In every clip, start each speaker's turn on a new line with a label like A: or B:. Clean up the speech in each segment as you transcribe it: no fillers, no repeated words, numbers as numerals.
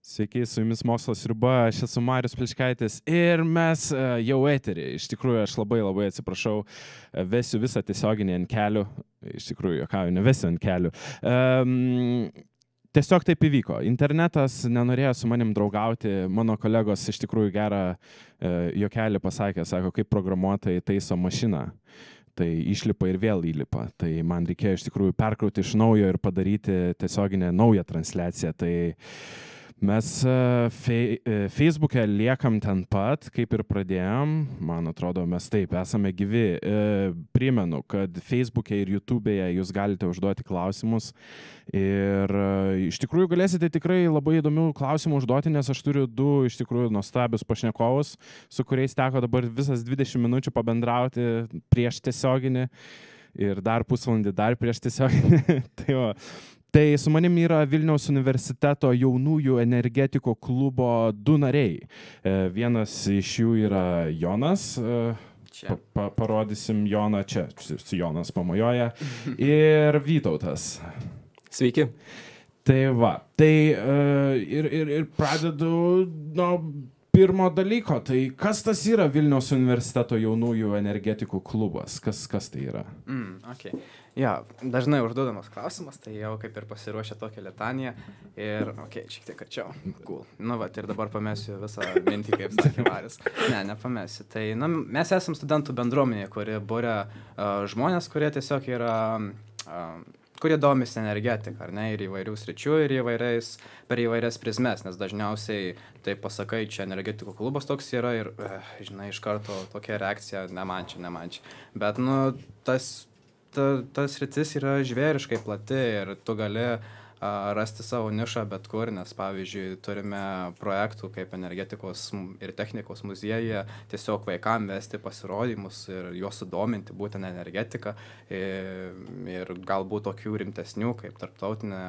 A: Sveiki, su jumis Mokslo sriuba, aš esu Marius Pličkaitis ir mes jau eterį. Iš tikrųjų, aš labai atsiprašau, vesiu visą tiesioginį ant kelių. Iš tikrųjų, juokauju, nevesiu ant kelių. Tiesiog taip įvyko. Internetas nenorėjo su manim draugauti. Mano kolegos iš tikrųjų gerą juokelį pasakė, sako, kaip programuotojai taiso mašiną. Tai išlipa ir vėl įlipa. Tai man reikėjo iš tikrųjų perkrauti iš naujo ir padaryti tiesioginę naują transliaciją. Tai mes Facebook'e liekam ten pat, kaip ir pradėjom. Man atrodo, mes taip esame gyvi. Primenu, kad Facebook'e ir YouTube'e jūs galite užduoti klausimus. Ir iš tikrųjų galėsite tikrai labai įdomių klausimų užduoti, nes aš turiu du iš tikrųjų nuostabius pašnekovus, su kuriais teko dabar visas 20 minučių pabendrauti prieš tiesioginį ir dar pusvalandį dar prieš tiesioginį. Tai su manim yra Vilniaus universiteto jaunųjų energetikų klubo du nariai. Vienas iš jų yra Jonas. Parodysim Joną čia. Jonas pamojoja. Ir Vytautas.
B: Sveiki.
A: Tai va. Tai ir pradedu nuo pirmo dalyko. Tai kas tas yra Vilniaus universiteto jaunųjų energetikų klubas? Kas tai yra?
B: Okay. Ja, dažnai užduodamas klausimas, tai jau kaip ir pasiruošę tokią litaniją ir, šiek tiek arčiau. Cool. Ir dabar pamesiu visą mintį, kaip sakė Marius. Nepamesiu. Tai, mes esam studentų bendruomenė, kuri būria žmonės, kurie tiesiog yra, kurie domisi energetiką, ar ne, ir įvairių sričių, ir per įvairias prizmes, nes dažniausiai, tai pasakai, čia energetikų klubas toks yra ir, iš karto tokia reakcija, ne man čia. Bet, tas sritis yra žvėriškai plati ir tu gali rasti savo nišą bet kur, nes pavyzdžiui turime projektų kaip energetikos ir technikos muziejuje tiesiog vaikam vesti pasirodymus ir juos sudominti būtent energetiką ir galbūt tokių rimtesnių kaip tarptautinė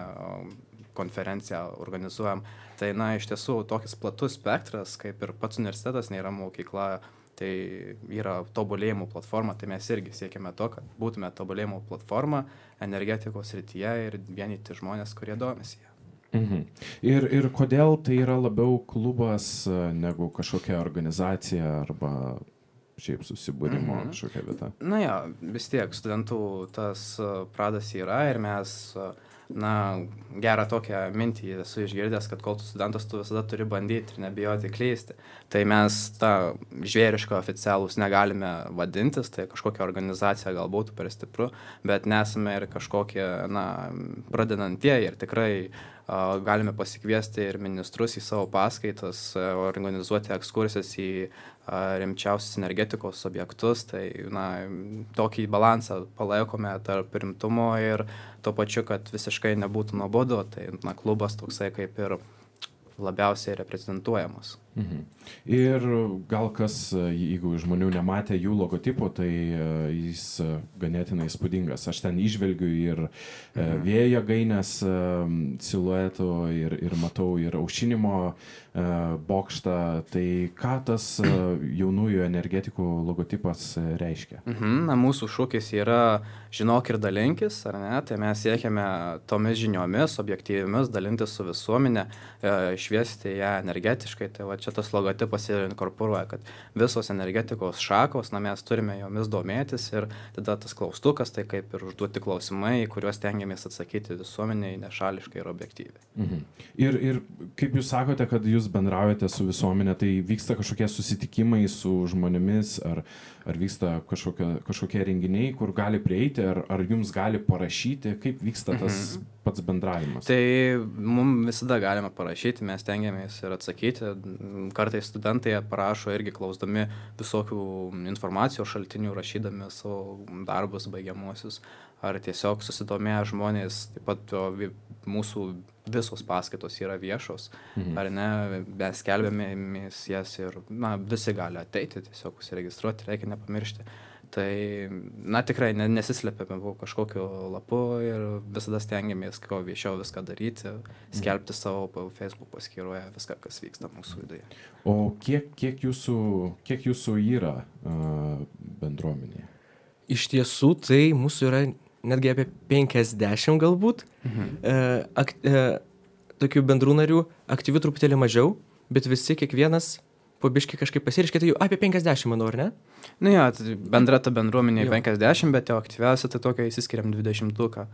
B: konferencija organizuojam. Tai iš tiesų tokis platus spektras, kaip ir pats universitetas nėra mokykla. Tai yra tobulėjimo platforma, tai mes irgi siekime to, kad būtume tobulėjimo platforma energetikos srityje ir vienyti žmonės, kurie domisi ją.
A: Ir kodėl tai yra labiau klubas negu kažkokia organizacija arba šiaip susibūrimo kažkokia vieta?
B: Vis tiek studentų tas pradas yra ir mes gerą tokią mintį esu išgirdęs, kad kol tu studentas, tu visada turi bandyti ir nebijoti klysti. Tai mes tą žvėrišką oficialūs negalime vadintis, tai kažkokia organizacija gal būtų per stipru, bet nesame ir kažkokie, pradedantieji ir tikrai galime pasikviesti ir ministrus į savo paskaitas, organizuoti ekskursijas į rimčiausius energetikos objektus, tai tokį balansą palaikome tarp rimtumo ir tuo pačiu, kad visiškai nebūtų nuobodu, tai klubas toksai kaip ir labiausiai reprezentuojamas.
A: Ir gal kas, jeigu žmonių nematė jų logotipų, tai jis ganėtinai įspūdingas. Aš ten įžvelgiu ir vėjo jėgainės siluetų ir matau ir aušinimo bokštą. Tai ką tas jaunųjų energetikų logotipas reiškia?
B: Mūsų šūkis yra žinok ir dalinkis, ar ne? Tai mes siekiame tomis žiniomis, objektyviomis, dalintis su visuomenė, šviesti ją energetiškai. Tai va čia tas logotipas ir inkorporuoja, kad visos energetikos šakos, mes turime jomis domėtis ir tada tas klaustukas, tai kaip ir užduoti klausimai, kuriuos tengiamės atsakyti visuomeniai nešališkai ir objektyviai.
A: Ir kaip jūs sakote, kad jūs bendraujate su visuomenė, tai vyksta kažkokie susitikimai su žmonėmis, ar vyksta kažkokie renginiai, kur gali prieiti, ar jums gali parašyti, kaip vyksta tas pats bendravimas?
B: Tai mums visada galima parašyti, mes tengiamės ir atsakyti. Kartais studentai parašo irgi klausdami visokių informacijos šaltinių, rašydami savo darbus baigiamuosius, ar tiesiog susidomėję žmonės, taip pat mūsų visos paskaitos yra viešos, ar ne, mes skelbėmės jas ir visi gali ateiti, tiesiog užsiregistruoti, reikia nepamiršti. Tai, tikrai nesislepiame kažkokiu lapu ir visada stengiamės, kuo viešiau viską daryti, skelbti savo Facebook paskyroje viską, kas vyksta mūsų viduje.
A: O kiek jūsų yra bendruomenėje?
C: Iš tiesų, tai mūsų yra netgi apie 50 galbūt, tokių bendrų narių, aktyvių truputėlį mažiau, bet visi kiekvienas po biškį kažkaip pasiriškė, tai jau apie 50, manau, ar ne?
B: Nu jo, tai bendra ta bendruomenė 50, bet jau aktyviausia tai tokia įsiskiriam 20-tuką.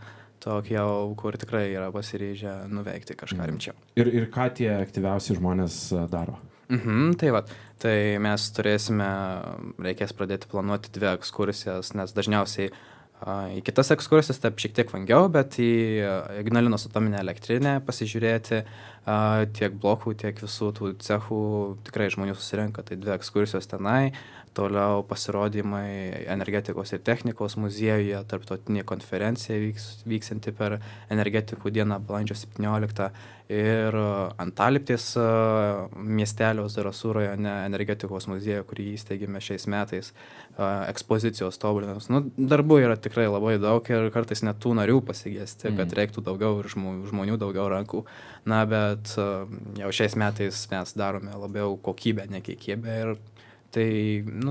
B: Tokia jau, kur tikrai yra pasiryžę nuveikti kažką rimčiau.
A: Ir ką tie aktyviausi žmonės daro?
B: Tai va, tai mes reikės pradėti planuoti 2 ekskursijas, nes dažniausiai į kitas ekskursijas taip šiek tiek vangiau, bet į Ignalinos atominę elektrinę pasižiūrėti tiek blokų, tiek visų tų cechų tikrai žmonių susirenka, tai 2 ekskursijos tenai, toliau pasirodymai energetikos ir technikos muziejuje, tarptautinė konferencija vyksanti per energetikų dieną balandžio 17 ir Antaliptės miestelio Zarasų rajone energetikos muziejuje, kurį įsteigėme šiais metais, ekspozicijos tobulinimas. Darbų yra tikrai labai daug ir kartais net tų narių pasigesti, kad reiktų daugiau ir žmonių daugiau rankų. Bet jau šiais metais mes darome labiau kokybę, ne kiekybę ir tai,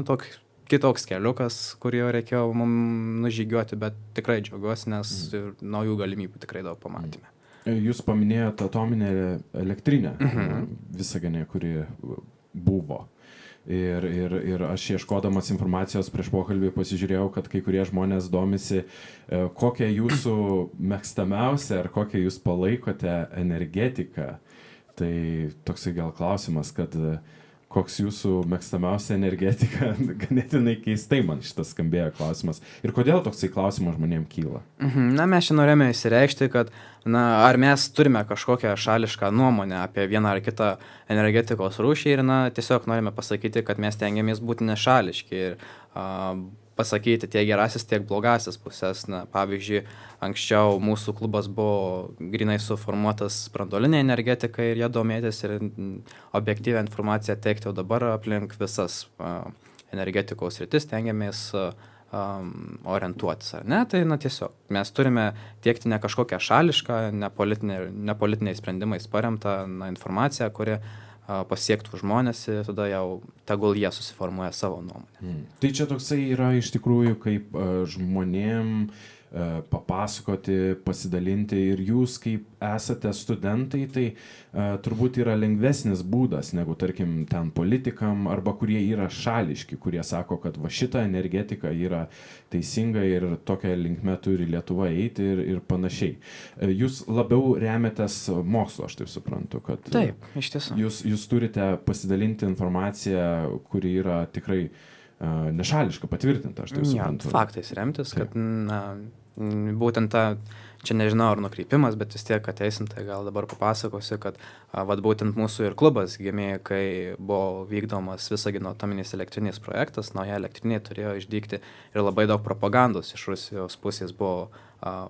B: toks kitoks keliukas, kurį reikėjo mums nužygiuoti, bet tikrai džiaugiuosi, nes naujų galimybių tikrai daug pamatėme.
A: Jūs paminėjote atominę elektrinę Visagine, kuri buvo. Ir aš ieškodamas informacijos prieš pokalbį pasižiūrėjau, kad kai kurie žmonės domisi, kokią jūsų mėgstamiausią ar kokią jūs palaikote energetiką. Tai toksai gal klausimas, kad koks jūsų mėgstamiausia energetika, ganėtinai keistai man šitas skambėjo klausimas. Ir kodėl toksai klausimas žmonėms kyla?
B: Mes čia norėjome įsireikšti, kad ar mes turime kažkokią šališką nuomonę apie vieną ar kitą energetikos rūšį ir tiesiog norime pasakyti, kad mes tengiamės būti nešališki ir pasakyti tiek gerasis, tiek blogasis pusės. Pavyzdžiui, anksčiau mūsų klubas buvo grinai suformuotas branduolinė energetika ir ją domėtis ir objektyvią informaciją teikti, o dabar aplink visas energetikos sritis tengiamės orientuotis, ar ne? Tai tiesiog mes turime tiekti ne kažkokią šališką, nepolitiniais sprendimais paremtą informaciją, kuri pasiektų žmonės ir tada jau tegul jie susiformuoja savo nuomonę.
A: Tai čia toksai yra iš tikrųjų kaip žmonėm papasakoti, pasidalinti ir jūs kaip esate studentai, tai turbūt yra lengvesnis būdas negu tarkim ten politikam arba kurie yra šališki, kurie sako, kad va šita energetika yra teisinga ir tokia linkme turi Lietuva eiti ir panašiai. Jūs labiau remiatės mokslo, aš taip suprantu, kad
B: taip, iš tiesų.
A: Jūs turite pasidalinti informaciją, kuri yra tikrai nešališka, patvirtinta, aš taip suprantu.
B: Faktais remtis, kad būtent čia nežinau ar nukreipimas, bet vis tiek ateisim, tai gal dabar papasakosiu, kad būtent mūsų ir klubas gimė, kai buvo vykdomas Visagino atominės elektrinės projektas, nauja elektrinė turėjo išdygti ir labai daug propagandos iš Rusijos pusės buvo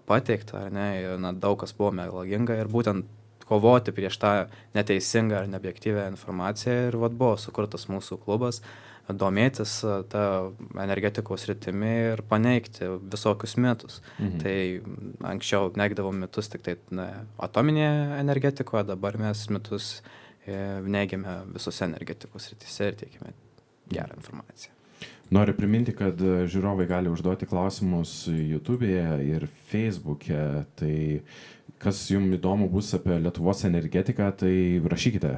B: pateikta, ar ne, ir daug kas buvo melaginga ir būtent kovoti prieš tą neteisingą ar neobjektyvią informaciją ir buvo sukurtas mūsų klubas, domėtis tą energetikos sritimi ir paneigti visokius mitus. Tai anksčiau neigdavom mitus tik tai atominėje energetikoje, dabar mes mitus neigiame visose energetikos srityse ir teikime gerą informaciją.
A: Noriu priminti, kad žiūrovai gali užduoti klausimus YouTube'e ir Facebook'e, tai kas jums įdomu bus apie Lietuvos energetiką, tai rašykite,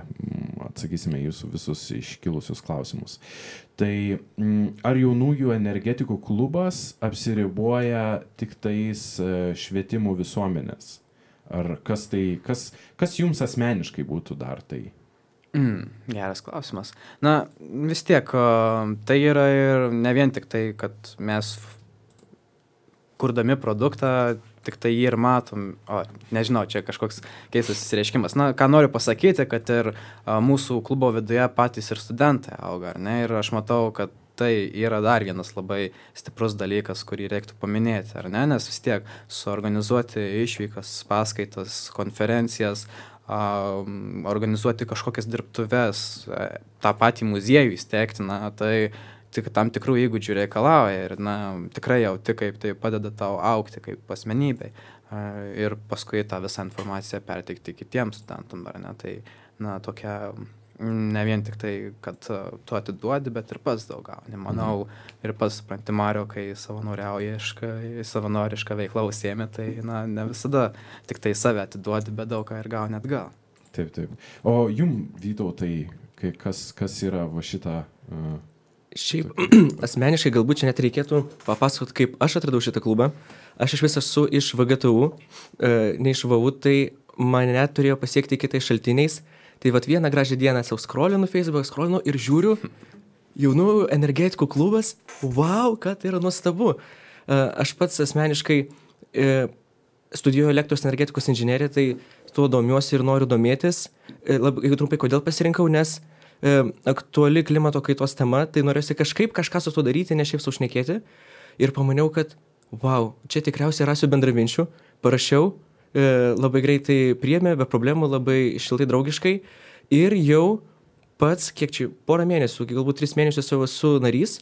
A: atsakysime jūsų visus iškilusius klausimus. Tai ar jaunųjų energetikų klubas apsiriboja tik tais švietimu visuomenės? Ar kas jums asmeniškai būtų dar tai?
B: Geras klausimas. Vis tiek, tai yra ir ne vien tik tai, kad mes kurdami produktą, tik tai jį ir matom, nežinau, čia kažkoks keistas įsireiškimas. Ką noriu pasakyti, kad ir mūsų klubo viduje patys ir studentai auga, ar ne? Ir aš matau, kad tai yra dar vienas labai stiprus dalykas, kurį reiktų paminėti, ar ne? Nes vis tiek suorganizuoti išvykas, paskaitas, konferencijas, organizuoti kažkokias dirbtuves, tą patį muziejų įsteigti, tai tik tam tikrų įgūdžių reikalauja ir tikrai jauti, kaip tai padeda tau augti kaip asmenybei ir paskui tą visą informaciją perteikti kitiems studentam, ar ne? Tai tokia ne vien tik tai, kad tu atiduodi, bet ir pats daug gauni. Manau, ir pats supranti, Mario, kai savanorišką veiklą užsiemi, tai ne visada tik tai save atiduodi, bet daug ką ir gauni atgal.
A: Taip, taip. O jum, Vytautai, kas yra va šitą...
C: Šiaip, asmeniškai galbūt čia net reikėtų papasakoti, kaip aš atradau šitą klubą. Aš iš vis esu iš VGTU, ne iš VU, tai mane turėjo pasiekti kitais šaltiniais. Tai vat vieną gražią dieną savo scrollinu Facebook, scrollinu ir žiūriu, jaunųjų energetikų klubas, wow, kad tai yra nuostabu. Aš pats asmeniškai studijuoju elektros energetikos inžineriją, tai tuo domiuosi ir noriu domėtis. Labai trumpai, kodėl pasirinkau, nes aktuali klimato kaitos tema, tai norėsiu kažką su tuo daryti, ne šiaip saušnekėti. Ir pamaniau, kad, wow, čia tikriausiai rasiu bendraminčių, parašiau, labai greitai priėmė, be problemų, labai šiltai draugiškai. Ir jau pats, kiek čia, porą mėnesių, galbūt 3 mėnesius jau esu narys,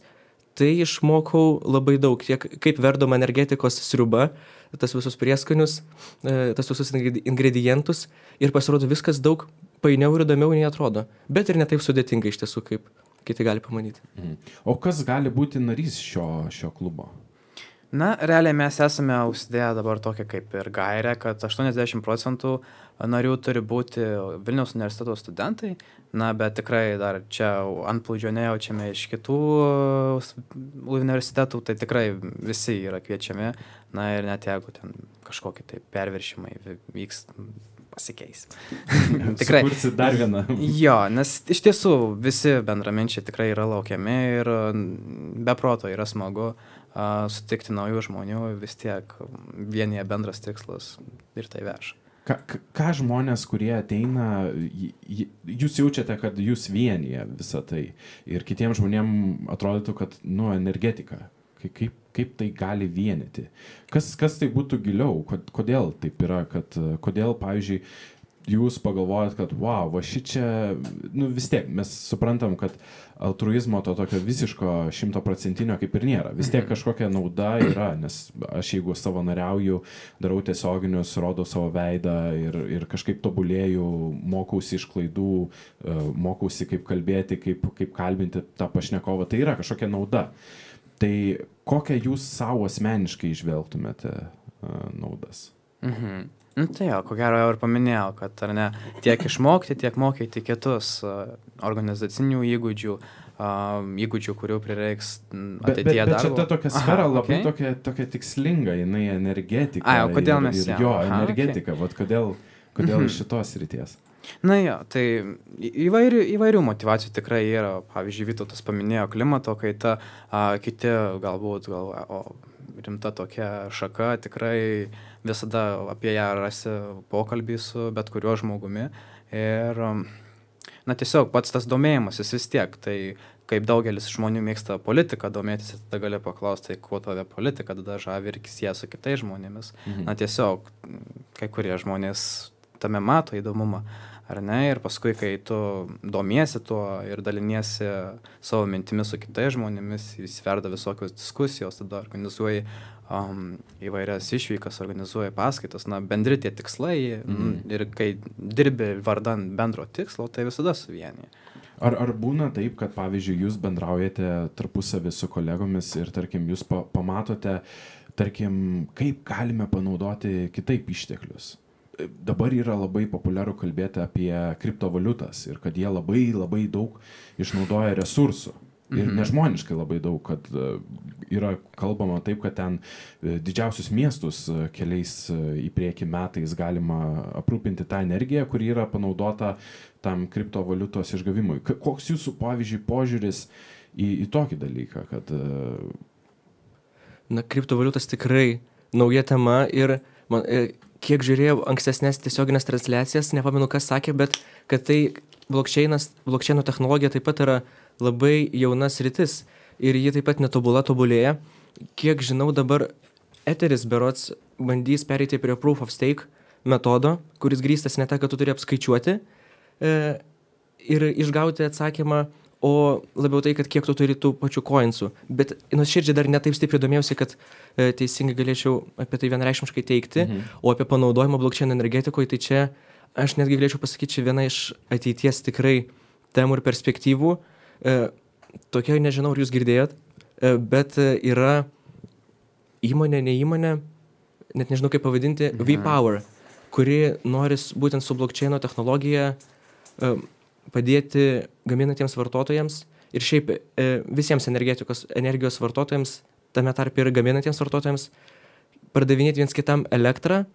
C: tai išmokau labai daug, tiek kaip verdoma energetikos sriuba, tas visus prieskonius, tas visus ingredientus ir pasirodo viskas daug painiau ir įdomiau nei atrodo, bet ir ne taip sudėtinga iš tiesų, kaip kiti gali pamanyti.
A: O kas gali būti narys šio klubo?
B: Na, realiai mes esame užsidėję dabar tokią kaip ir gairę, kad 80% narių turi būti Vilniaus universiteto studentai, na, bet tikrai dar čia antplūdžio nejaučiame iš kitų universitetų, tai tikrai visi yra kviečiami, na ir net jeigu ten kažkokie tai perviršimai vyks, pasikeis.
A: Tikrai. Sukursi dar vieną.
B: Jo, nes iš tiesų visi bendraminčiai tikrai yra laukiami ir be proto yra smagu sutikti naujų žmonių, vis tiek vienyje bendras tikslas ir tai veža.
A: Ką žmonės, kurie ateina, jūs jaučiate, kad jūs vienyje visą tai ir kitiems žmonėms atrodytų, kad, energetika, kaip tai gali vienyti? Kas tai būtų giliau? Kodėl taip yra? Kodėl, pavyzdžiui, jūs pagalvojat, kad, wow, va šičia, vis tiek, mes suprantam, kad altruizmo to tokio visiško 100% kaip ir nėra. Vis tiek kažkokia nauda yra, nes aš jeigu savanoriauju, darau tiesioginius, rodau savo veidą ir kažkaip tobulėju, mokausi iš klaidų, mokausi kaip kalbėti, kaip kalbinti tą pašnekovą, tai yra kažkokia nauda. Tai kokią jūs savo asmeniškai išvelgtumėte naudas?
B: Tai jo, ko gero jau ir paminėjau, kad ar ne, tiek išmokti, tiek mokyti kitus organizacinių įgūdžių, kurių prireiks ateityje darbo.
A: Bet čia ta tokia sfera labai tokia tikslinga, jinai energetika.
B: O kodėl mes
A: energetika, vat kodėl iš šitos ryties?
B: Na jo, tai įvairių motyvacijų tikrai yra. Pavyzdžiui, Vytautas paminėjo klimato kaitą, kiti galbūt rimta tokia šaka, tikrai visada apie ją rasi pokalbį su bet kuriuo žmogumi. Ir, tiesiog pats tas domėjimasis vis tiek, tai kaip daugelis žmonių mėgsta politiką domėtis, tada gali paklausti, tai kuo tave politika tada žavi ir sieja su kitais žmonėmis. Tiesiog kai kurie žmonės tame mato įdomumą, ar ne, ir paskui, kai tu domiesi tuo ir daliniesi savo mintimis su kitais žmonėmis, įsiverda visokios diskusijos, tada organizuoji įvairias išvykas, organizuoji paskaitas, bendri tie tikslai ir kai dirbi vardan bendro tikslo, tai visada suvienyje.
A: Ar būna taip, kad, pavyzdžiui, jūs bendraujate tarpusavį su kolegomis ir, tarkim, jūs pamatote, tarkim, kaip galime panaudoti kitaip išteklius? Dabar yra labai populiaru kalbėti apie kriptovaliutas ir kad jie labai, labai daug išnaudoja resursų. Ir nežmoniškai labai daug, kad yra kalbama taip, kad ten didžiausius miestus keliais į priekį metais galima aprūpinti tą energiją, kuri yra panaudota tam kriptovaliutos išgavimui. Koks jūsų, pavyzdžiui, požiūris į tokį dalyką?
C: Kriptovaliutas tikrai nauja tema ir kiek žiūrėjau ankstesnės tiesioginės transliacijas, nepamenu, kas sakė, bet kad tai blockchaino technologija taip pat yra labai jauna sritis ir ji taip pat tobulėja. Kiek žinau, dabar Etheris berods bandys pereiti prie proof of stake metodo, kuris grįstas ne ta, kad tu turi apskaičiuoti ir išgauti atsakymą, o labiau tai, kad kiek tu turi tų pačių coinsų. Bet nuoširdžiai dar netaip stipriai domėjausi, kad teisingai galėčiau apie tai vienareikšmiškai teikti, o apie panaudojimą blockchain energetikoje, tai čia aš netgi galėčiau pasakyti, viena iš ateities tikrai temų ir perspektyvų. Tokia, nežinau, ar jūs girdėjot, bet yra įmonė, ne įmonė, net nežinau kaip pavadinti, V-Power, kuri nori būtent su blockchaino technologija padėti gaminantiems vartotojams ir šiaip visiems energijos vartotojams, tame tarp ir gaminantiems vartotojams, pardavinėti viens kitam elektrą,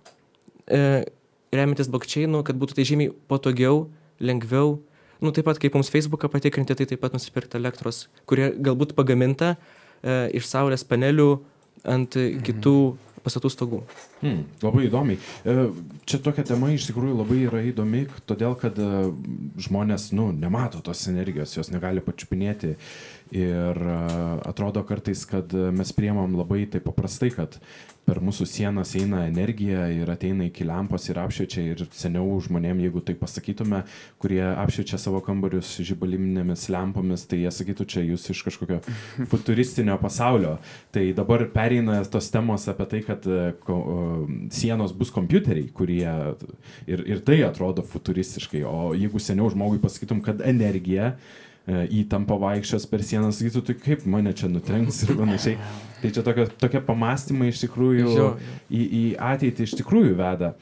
C: remiantis blockchainu, kad būtų tai žymiai patogiau, lengviau. Taip pat kaip mums Facebooką patikrinti, tai taip pat nusipirkti elektros, kurie galbūt pagaminta iš saulės panelių ant kitų pastatų stogų.
A: Labai įdomiai. Čia tokia tema iš tikrųjų labai yra įdomi, todėl kad žmonės nemato tos energijos, jos negali pačiupinėti ir atrodo kartais, kad mes priimam labai taip paprastai, kad per mūsų sienas eina energija ir ateina iki lempos ir apšviečia ir seniau žmonėm, jeigu tai pasakytume, kurie apšviečia savo kambarius žibaliminėmis lempomis, tai jie sakytų, čia jūs iš kažkokio futuristinio pasaulio. Tai dabar pereina tos temos apie tai, kad sienos bus kompiuteriai, kurie ir tai atrodo futuristiškai, o jeigu seniau žmogui pasakytum, kad energija įtampa vaikščios per sieną, sakytų, tai kaip mane čia nutrenks ir panašiai. Tai čia tokie pamastymai iš tikrųjų į ateitį iš tikrųjų veda.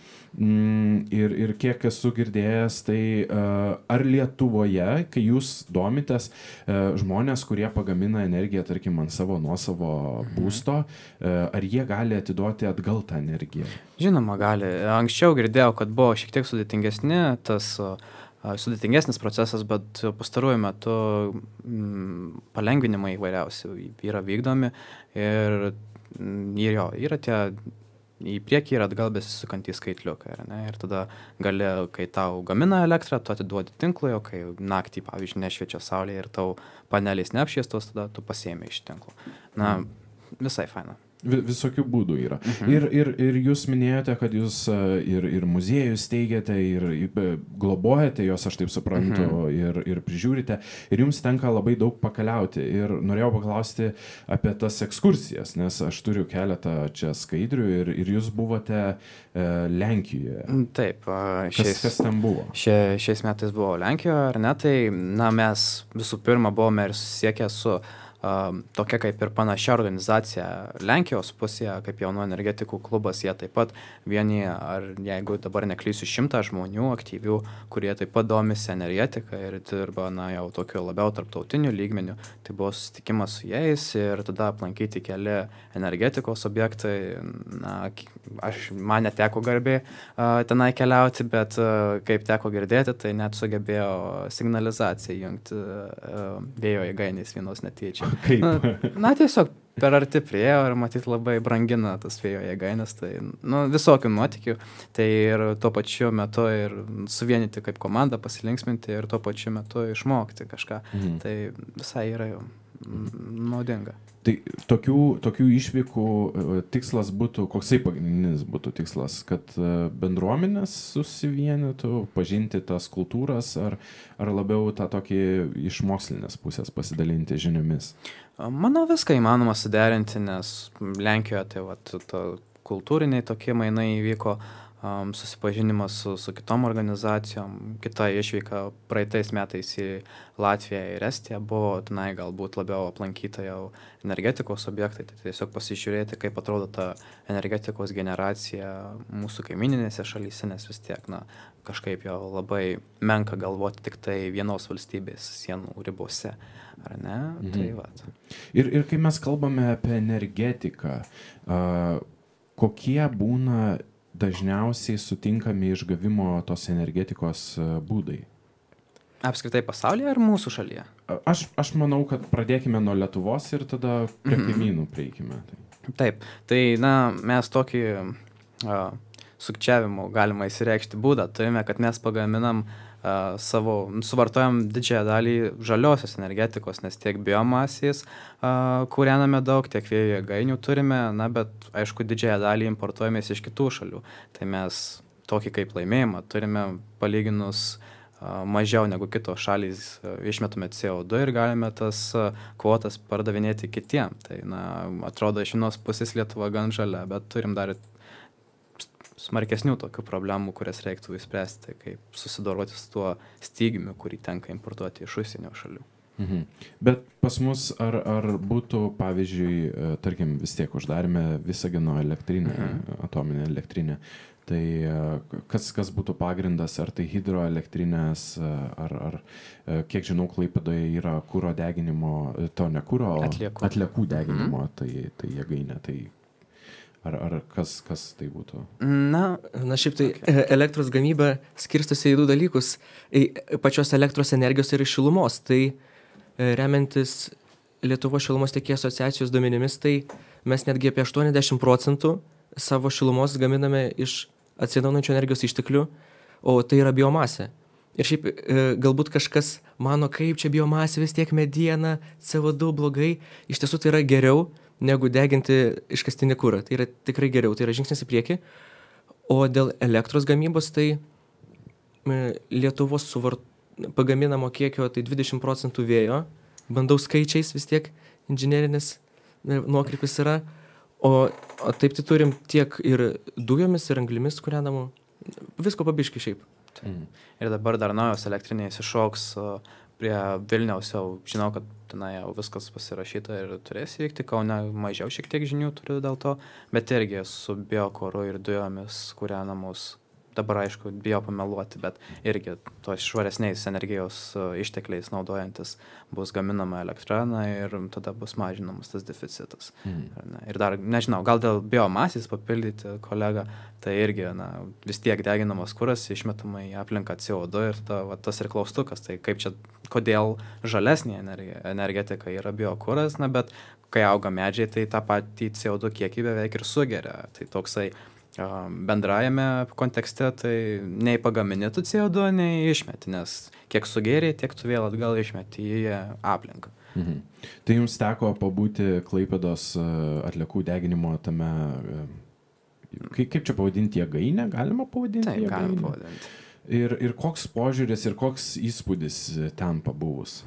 A: Ir kiek esu girdėjęs, tai ar Lietuvoje, kai jūs domitės, žmonės, kurie pagamina energiją, tarkim, ant savo nuosavo būsto, ar jie gali atiduoti atgal tą energiją?
B: Žinoma, gali. Anksčiau girdėjau, kad buvo šiek tiek sudėtingesnis procesas, bet pastaruoju metu palengvinimai įvairiausi yra vykdomi ir yra tie į priekį ir atgal besisukantys skaitliukai. Ir tada gali, kai tau gamina elektrą, tu atiduodi tinklui, o kai naktį, pavyzdžiui, nešviečia saulė ir tau panelės neapšviestos, tada tu pasiėmė iš tinklo. Visai faina.
A: Visokių būdų yra. Ir jūs minėjote, kad jūs ir muziejus teigiate, ir globojate jos, aš taip suprantu, ir prižiūrite. Ir jums tenka labai daug pakeliauti. Ir norėjau paklausti apie tas ekskursijas, nes aš turiu keletą čia skaidrių ir jūs buvote Lenkijoje.
B: Taip.
A: Kas ten buvo?
B: Šiais metais buvo Lenkijoje, ar ne? Tai mes visų pirma buvome ir susiekę su tokia kaip ir panašia organizacija Lenkijos pusėje, kaip jaunų energetikų klubas, jie taip pat vienyje, ar jeigu dabar neklysiu, 100 žmonių aktyvių, kurie taip pat domisi energetika ir dirba jau tokiu labiau tarptautiniu lygmeniu. Tai buvo susitikimas su jais ir tada aplankyti keli energetikos objektai. Man neteko garbė tenai keliauti, bet kaip teko girdėti, tai net sugebėjo signalizaciją jungti vėjo jėgainės vienos netyčia.
A: Kaip?
B: Tiesiog per arti priėjo ir matyt labai brangina tas vėjo jėgainės, tai visokių nuotykių, tai ir tuo pačiu metu ir suvienyti kaip komandą, pasilinksminti ir tuo pačiu metu išmokti kažką, tai visai yra naudinga.
A: Tai tokių išvykų tikslas būtų, koksai pagrindinis būtų tikslas, kad bendruomenės susivienytų, pažinti tas kultūras, ar labiau tą tokį iš mokslinės pusės pasidalinti žiniomis?
B: Manau, viską įmanoma suderinti, nes Lenkijoje tai kultūriniai tokie mainai įvyko, susipažinimas su kitom organizacijom, kita išvyka praeitais metais į Latviją ir Estiją buvo, tenai galbūt labiau aplankyta jau energetikos objektai, tai tiesiog pasižiūrėti, kaip atrodo ta energetikos generacija mūsų kaimininėse šalyse, nes vis tiek, kažkaip jau labai menka galvoti tik tai vienos valstybės sienų ribose, ar ne? Tai vat.
A: Ir kai mes kalbame apie energetiką, kokie būna dažniausiai sutinkami išgavimo tos energetikos būdai?
B: Apskritai pasaulyje ar mūsų šalyje?
A: Aš manau, kad pradėkime nuo Lietuvos ir tada prie kaimynų prieikime.
B: Taip, tai mes tokį sukčiavimo galima įsireikšti būdą turime, kad mes pagaminam suvartojam didžiąją dalį žaliosios energetikos, nes tiek biomasės kūrename daug, tiek vėjo jėgainių turime, bet aišku didžiąją dalį importuojame iš kitų šalių. Tai mes tokį kaip laimėjimą turime palyginus mažiau negu kitos šalys, išmetame CO2 ir galime tas kvotas pardavinėti kitiem. Tai atrodo iš vienos pusės Lietuva gan žalia, bet turim dar smarkesnių tokių problemų, kurias reiktų įspręsti, kaip susidoroti su tuo stygiumi, kurį tenka importuoti iš užsienio šalių.
A: Bet pas mus ar būtų, pavyzdžiui, tarkim, vis tiek uždarėme Visagino elektrinę, atominę elektrinę, tai kas būtų pagrindas, ar tai hidroelektrinės, ar kiek žinau, Klaipėdoje yra kuro deginimo, to ne kuro, atliekų deginimo, tai jėgainė, tai ar kas tai būtų?
C: Na šiaip tai elektros gamyba skirstosi į du dalykus, pačios elektros energijos ir šilumos, tai remiantis Lietuvos šilumos tiekėjų asociacijos duomenimis, tai mes netgi apie 80% savo šilumos gaminame iš atsinaujinančių energijos išteklių, o tai yra biomasė. Ir šiaip galbūt kažkas mano, kaip čia biomasė, vis tiek mediena, CO2 blogai, iš tiesų tai yra geriau negu deginti iškastinį kurą. Tai yra tikrai geriau, tai yra žingsnis į priekį. O dėl elektros gamybos, tai Lietuvos pagaminamo kiekio tai 20% vėjo, bandau skaičiais vis tiek, inžinerinis nuokrypis yra, o taip tai turim tiek ir dujomis, ir anglimis kūrenamų, visko pabiški šiaip.
B: Ir dabar dar naujos elektrinės iššoks prie Vilniaus, jau žinau, kad tenai jau viskas pasirašyta ir turės įvykti, Kaune mažiau šiek tiek žinių turiu dėl to, bet irgi su biokoru ir dujomis kūrenamos. Dabar, aišku, bijo pameluoti, bet irgi tos švaresniais energijos ištekliais naudojantis bus gaminama elektra, ir tada bus mažinamas tas deficitas. Ir dar, nežinau, gal dėl biomasės papildyti kolegą, tai irgi vis tiek deginamas kuras, išmetama į aplinką CO2 ir tada tas ir klaustukas, tai kaip čia, kodėl žalesnė energetika yra biokuras, bet kai auga medžiai, tai tą patį CO2 kiekį beveik ir sugeria. Tai toksai bendrajame kontekste, tai nei pagamini tu CO2, nei išmeti, nes kiek sugėrė, tiek tu vėl atgal išmeti į aplinką.
A: Tai jums teko pabūti Klaipėdos atliekų deginimo tame, kaip čia pavadinti, jėgainę, galima pavadinti?
B: Taip, galima pavadinti.
A: Ir koks požiūris ir koks įspūdis ten pabuvus?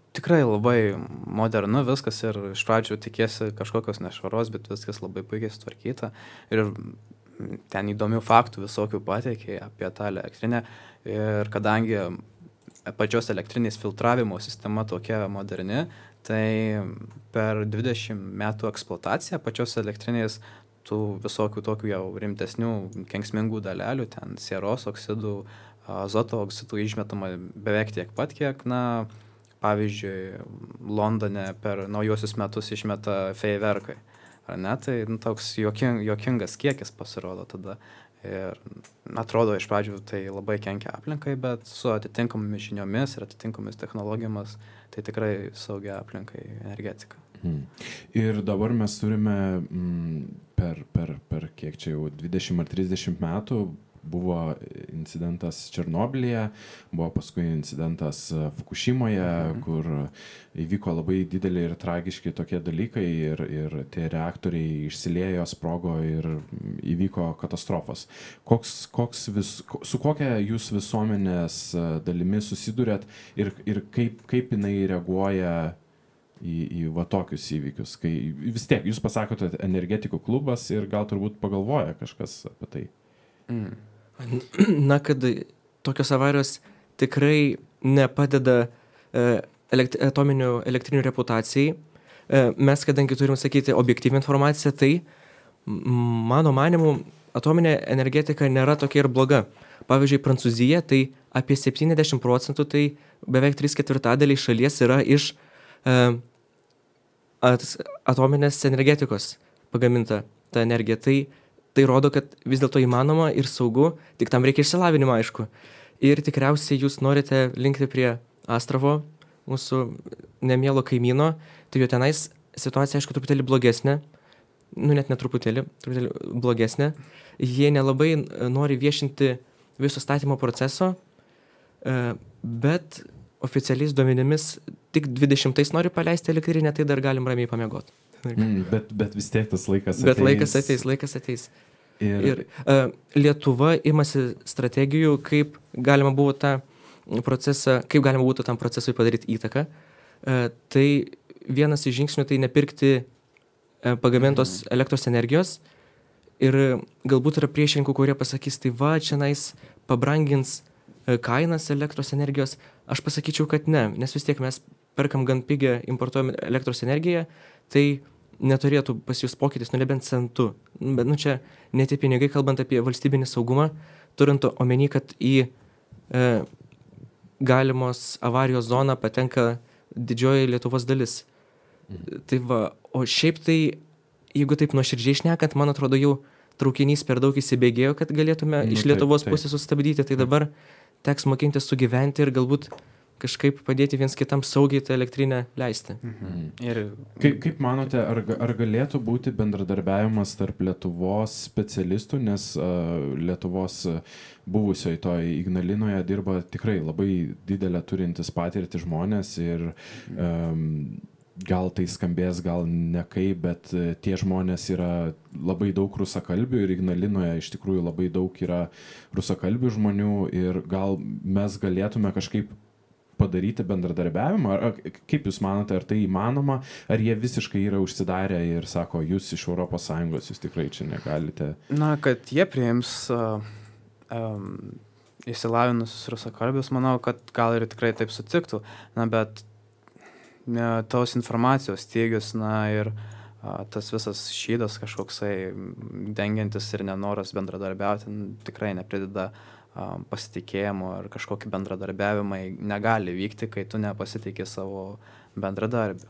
B: Tikrai labai modernu viskas ir iš pradžių tikėsi kažkokios nešvaros, bet viskas labai puikiai sutvarkyta ir ten įdomių faktų visokių pateikė apie tą elektrinę ir kadangi pačios elektrinės filtravimo sistema tokia moderni, tai per 20 metų eksploataciją pačios elektrinės tų visokių tokių jau rimtesnių kenksmingų dalelių, ten sieros oksidų, azoto oksidų išmetama beveik tiek pat, kiek, pavyzdžiui, Londone per naujosius metus išmeta feiverkai, ar ne? Tai toks juokingas kiekis pasirodo tada. Ir atrodo iš pradžių tai labai kenkia aplinkai, bet su atitinkamomis žiniomis ir atitinkamomis technologijomis tai tikrai saugia aplinkai energetika.
A: Ir dabar mes turime per kiek čia jau 20 ar 30 metų buvo incidentas Černobylyje, buvo paskui incidentas Fukušimoje, kur įvyko labai dideli ir tragiški tokie dalykai ir tie reaktoriai išsiliejo, sprogo ir įvyko katastrofos. Su kokia jūs visuomenės dalimi susidurėt ir kaip jinai reaguoja į va tokius įvykius? Kai vis tiek jūs pasakote energetikų klubas ir gal turbūt pagalvoja kažkas apie tai.
C: Kad tokios avarijos tikrai nepadeda atominių elektrinių reputacijai. Mes, kadangi turim sakyti objektyvią informaciją, tai mano manimu atominė energetika nėra tokia ir bloga. Pavyzdžiui, Prancūzija, tai apie 70%, tai beveik 3/4 šalies yra iš atominės energetikos pagaminta ta energija. Tai rodo, kad vis dėlto įmanoma ir saugu, tik tam reikia išsilavinimo, aišku. Ir tikriausiai jūs norite linkti prie Astravo, mūsų nemielo kaimyno, tai jo tenais situacija, aišku, truputėlį blogesnė, net netruputėlį, truputėlį blogesnė. Jie nelabai nori viešinti viso statymo proceso, bet oficialiais duomenimis tik 20 nori paleisti elektrinę, tai dar galim ramiai pamiegoti.
A: Bet vis tiek tas laikas ateis.
C: Bet laikas ateis. Ir Lietuva imasi strategijų, kaip galima būtų tam procesui padaryti įtaką. Tai vienas iš žingsnių tai nepirkti pagamintos elektros energijos Ir galbūt yra priešininkų, kurie pasakys, tai va, čia pabrangins kainas elektros energijos. Aš pasakyčiau, kad ne, nes vis tiek mes perkam gan pigią, importuojam elektros energiją, tai neturėtų pas jūs pokytis, nebent centu. Bet čia ne tie pinigai, kalbant apie valstybinį saugumą, turint omeny, kad į galimos avarijos zoną patenka didžioji Lietuvos dalis. Tai va, o šiaip tai, jeigu taip nuoširdžiai šnekant, man atrodo, jau traukinys per daug įsibėgėjo, kad galėtume iš Lietuvos pusės sustabdyti, tai dabar teks mokintis sugyventi ir galbūt kažkaip padėti viens kitam saugiai tą elektrinę leisti.
A: Ir kaip manote, ar galėtų būti bendradarbiavimas tarp Lietuvos specialistų, nes Lietuvos buvusioje toje Ignalinoje dirba tikrai labai didelę turintis patirtį žmonės ir gal tai skambės, gal ne kaip, bet tie žmonės yra labai daug rusakalbių ir Ignalinoje iš tikrųjų labai daug yra rusakalbių žmonių ir gal mes galėtume kažkaip padaryti bendradarbiavimą, kaip jūs manote, ar tai įmanoma, ar jie visiškai yra užsidarę ir sako, jūs iš ES, jūs tikrai čia negalite?
B: Na, kad jie priims išsilavinusius rusakalbius, manau, kad gal ir tikrai taip sutiktų, bet tos informacijos stygius, ir tas visas šydas kažkoksai dengiantis ir nenoras bendradarbiauti tikrai neprideda pasitikėjimo ir kažkokį bendradarbiavimą negali vykti, kai tu nepasitikė savo bendradarbių.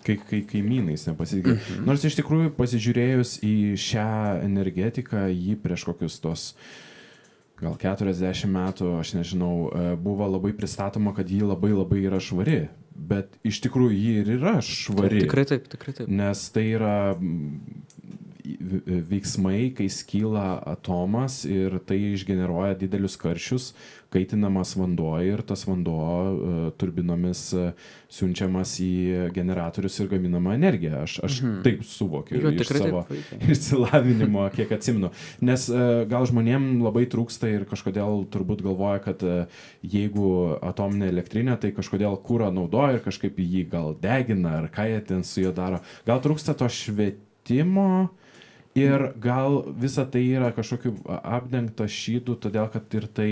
A: Kai kaimynais nepasitikė. Nors iš tikrųjų pasižiūrėjus į šią energetiką, jį prieš kokius tos gal 40 metų, aš nežinau, buvo labai pristatoma, kad ji labai labai yra švari. Bet iš tikrųjų ji ir yra švari.
C: Tikrai taip.
A: Nes tai yra veiksmai, kai skyla atomas ir tai išgeneruoja didelius karščius, kaitinamas vanduo ir tas vanduo turbinomis siunčiamas į generatorius ir gaminama energija. Aš taip suvokiu iš savo išsilavinimo, kiek atsimenu. Nes gal žmonėm labai trūksta ir kažkodėl turbūt galvoja, kad jeigu atominė elektrinė, tai kažkodėl kūrą naudoja ir kažkaip jį gal degina ar ką jie ten su juo daro. Gal trūksta to švietimo ir gal visa tai yra kažkokiu apdengta šydu, todėl kad ir tai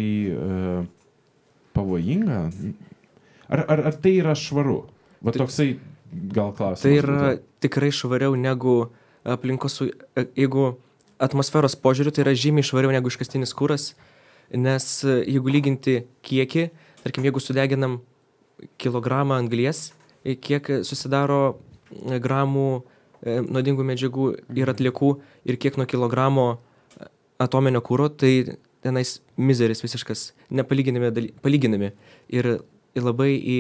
A: pavojinga? Ar tai yra švaru? Va toksai gal klausimas.
C: Tai yra tikrai švariau negu aplinkos, jeigu atmosferos požiūriu, tai yra žymiai švariau negu iškastinis kuras, nes jeigu lyginti kiekį, tarkim, jeigu sudeginam kilogramą anglies, kiek susidaro gramų nuodingų medžiagų ir atliekų ir kiek nuo kilogramo atominio kuro, tai tenais mizeris visiškas, palyginami ir labai į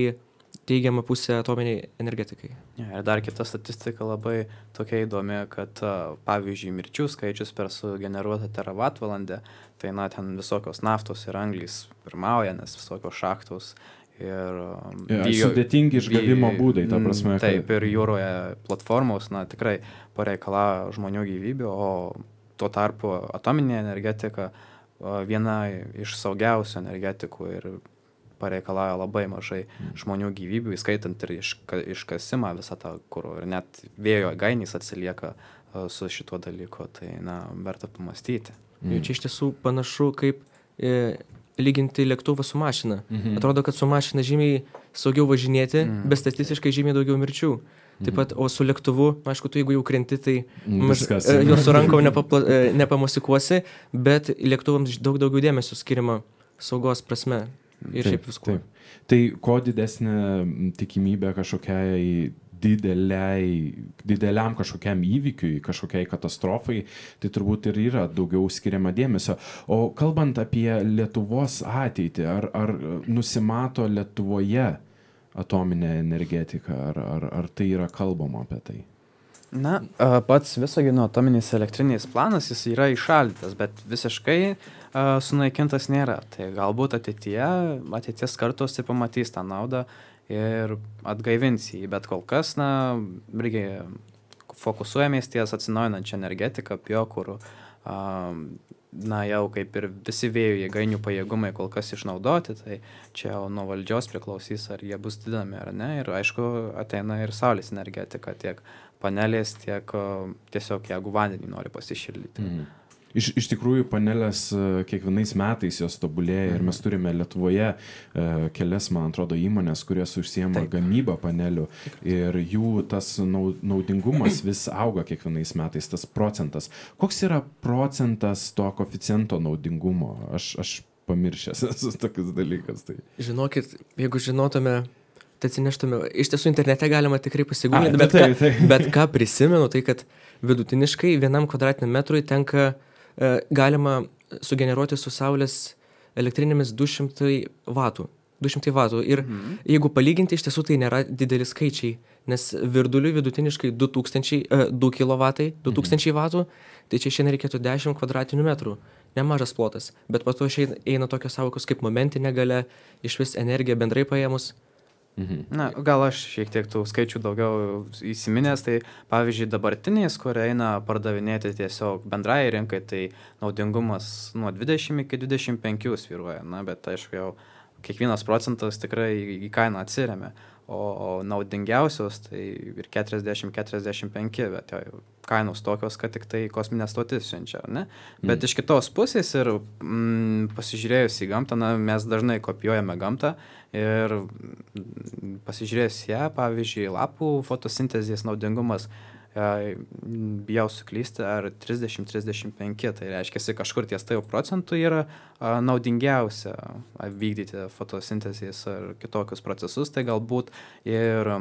C: teigiamą pusę atominiai energetikai.
B: Ir dar kita statistika labai tokia įdomi, kad pavyzdžiui mirčių skaičius per sugeneruotą teravatvalandę, tai ten visokios naftos ir anglys pirmauja, nes visokios šachtos ir
A: sudėtingi išgavimo būdai, ta prasme.
B: Taip, ir jūroje platformos, tikrai pareikalauja žmonių gyvybių, o tuo tarpu atominė energetika viena iš saugiausių energetikų ir pareikalauja labai mažai žmonių gyvybių, įskaitant ir iškasimą visą tą kuro. Ir net vėjo jėgainės atsilieka su šituo dalyku, tai verta pamastyti.
C: Jau čia iš tiesų panašu kaip lyginti lėktuvą su mašina. Atrodo, kad su mašina žymiai saugiau važinėti, bet statistiškai žymiai daugiau mirčių. Taip pat, o su lėktuvu, aišku, tu jeigu jau krenti, tai jo su rankom nepamosikuosi, bet lėktuvams daug daugiau dėmesio skiriama saugos prasme ir šiaip viskuo.
A: Tai ko didesnė tikimybė kažkokiai dideliam kažkokiam įvykiui, kažkokiai katastrofai, tai turbūt ir yra daugiau skiriama dėmesio. O kalbant apie Lietuvos ateitį, ar nusimato Lietuvoje atominė energetika, ar tai yra kalbama apie tai?
B: Pats Visagino atominės elektrinės planas, jis yra įšaldytas, bet visiškai sunaikintas nėra. Tai galbūt ateities kartos tai pamatys tą naudą ir atgaivins jį, bet kol kas, irgi fokusuojamės ties atsinaujinančią energetiką, biokuru, na, jau kaip ir visi vėjo jėgainių pajėgumai kol kas išnaudoti, tai čia jau nuo valdžios priklausys, ar jie bus didinami ar ne. Ir aišku, ateina ir saulės energetika, tiek panelės, tiek tiesiog jeigu vandenį nori pasišildyti.
A: Iš tikrųjų, panelės kiekvienais metais jos tobulėja ir mes turime Lietuvoje kelias, man atrodo, įmonės, kurios užsiema gamybą panelių ir jų tas naudingumas vis auga kiekvienais metais, tas procentas. Koks yra procentas to koeficiento naudingumo? Aš pamiršęs esu tokius dalykas. Tai.
C: Žinokit, jeigu žinotume, tai atsineštume, iš tiesų internete galima tikrai pasigūlinti, bet ką prisimenu, tai kad vidutiniškai 1 kvadratiniam metrui tenka galima sugeneruoti su saulės elektrinėmis 200 vatų. 200 vatų. Ir jeigu palyginti, iš tiesų tai nėra dideli skaičiai, nes virduliui vidutiniškai 2 kilovatai, 2000 vatų, tai čia šiandien reikėtų 10 kvadratinių metrų. Nemažas plotas. Bet po to eina tokios sąvokos kaip momentinė galia, iš vis energija bendrai paėmus.
B: Na, gal aš šiek tiek tų skaičių daugiau įsiminęs, tai pavyzdžiui dabartiniais, kur eina pardavinėti tiesiog bendrai rinkai, tai naudingumas nuo 20 iki 25 svyruoja, na, bet aišku jau kiekvienas procentas tikrai į kainą atsiremia, o naudingiausios tai ir 40-45, bet jau kainos tokios, kad tik tai kosminė stotis siunčia, ne? Bet iš kitos pusės ir pasižiūrėjus į gamtą, na, mes dažnai kopijuojame gamtą ir pasižiūrėjus ją, pavyzdžiui, lapų fotosintezės naudingumas, bijau suklysti, ar 30-35, tai reiškia, kažkur ties tai procentų yra naudingiausia vykdyti fotosintezės ar kitokius procesus, tai galbūt ir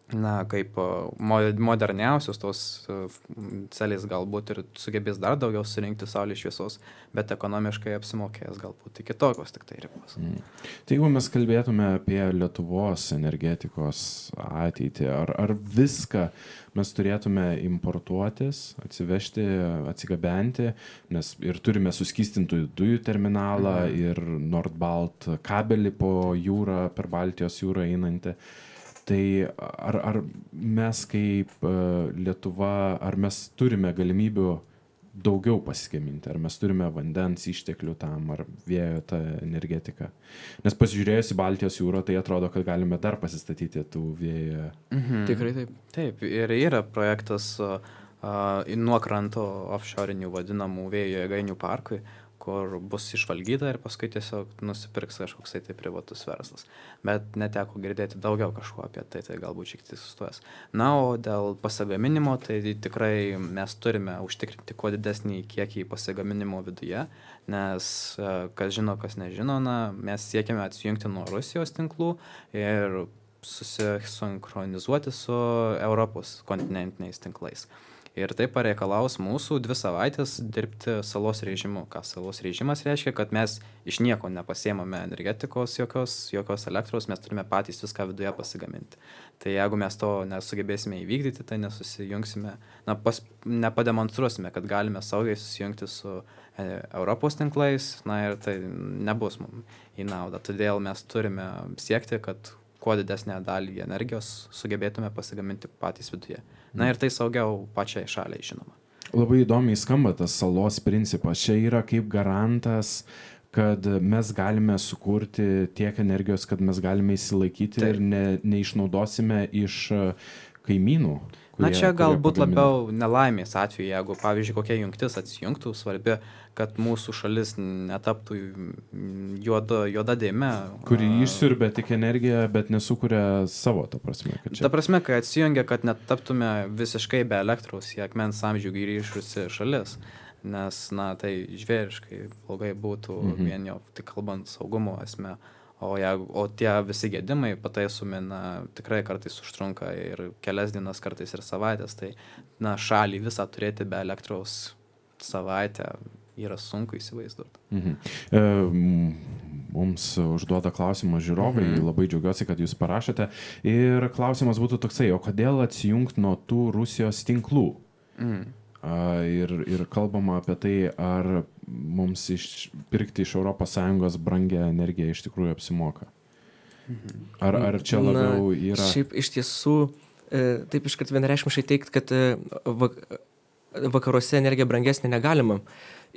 B: na, kaip moderniausios tos celės galbūt ir sugebės dar daugiau surinkti saulės šviesos, bet ekonomiškai apsimokės galbūt iki tokios tik tai ribos.
A: Tai jeigu mes kalbėtume apie Lietuvos energetikos ateitį, ar viską mes turėtume importuotis, atsivežti, atsigabenti, nes ir turime suskystintų dujų terminalą ir Nordbalt kabelį po jūrą, per Baltijos jūrą einantį. Tai ar mes kaip Lietuva, ar mes turime galimybių daugiau pasigaminti, ar mes turime vandens išteklių tam, ar vėjo tą energetiką? Nes pasižiūrėjus į Baltijos jūrą, tai atrodo, kad galime dar pasistatyti tų vėjo.
C: Tikrai taip.
B: Taip, ir yra projektas nuo kranto offshore'inių vadinamų vėjo jėgainių parkui, kur bus išvalgyta ir paskui tiesiog nusipirks kažkoks tai privatus verslas. Bet neteko girdėti daugiau kažko apie tai, tai galbūt šiek tiek sustojęs. Na, o dėl pasigaminimo, tai tikrai mes turime užtikrinti kuo didesnį kiekį pasigaminimo viduje, nes kas žino, kas nežino, na, mes siekiame atsijungti nuo Rusijos tinklų ir susisinchronizuoti su Europos kontinentiniais tinklais. Ir tai pareikalaus mūsų 2 savaitės dirbti salos režimu. Ką salos režimas reiškia, kad mes iš nieko nepasiemame energetikos, jokios elektros, mes turime patys viską viduje pasigaminti. Tai jeigu mes to nesugebėsime įvykdyti, tai nesusijungsime, nepademonstruosime, kad galime saugiai susijungti su Europos tinklais, na ir tai nebus mums į naudą. Todėl mes turime siekti, kad kuo didesnę dalį energijos sugebėtume pasigaminti patys viduje. Na ir tai saugiau pačiai šaliai, žinoma.
A: Labai įdomiai skamba tas salos principas. Čia yra kaip garantas, kad mes galime sukurti tiek energijos, kad mes galime įsilaikyti ir neišnaudosime iš kaimynų.
B: Na čia galbūt labiau nelaimės atveju, jeigu, pavyzdžiui, kokia jungtis atsijungtų, svarbi, kad mūsų šalis netaptų juoda dėme.
A: Kuri išsiurbia tik energiją, bet nesukuria savo, ta prasme.
B: Ta prasme, kai atsijungia, kad netaptume visiškai be elektros į akmens amžių grįžusi šalis, nes, na, tai žvėriškai blogai būtų vien jau tik kalbant saugumo esmę. O tie visi gedimai pataisomi, na, tikrai kartais užtrunka ir kelias dienas, kartais ir savaitės, tai, na, šalį visą turėti be elektros savaitę yra sunku įsivaizduoti.
A: Mums užduoda klausimą žiūrovai, labai džiaugiuosi, kad jūs parašėte. Ir klausimas būtų toksai, o kodėl atsijungti nuo tų Rusijos tinklų? Ir kalbama apie tai, ar mums pirkti iš ES brangią energiją iš tikrųjų apsimoka. Ar čia labiau yra...
C: Šiaip iš tiesų, taip iškart vienareikšmiškai teikti, kad vakaruose energija brangesnė negalima.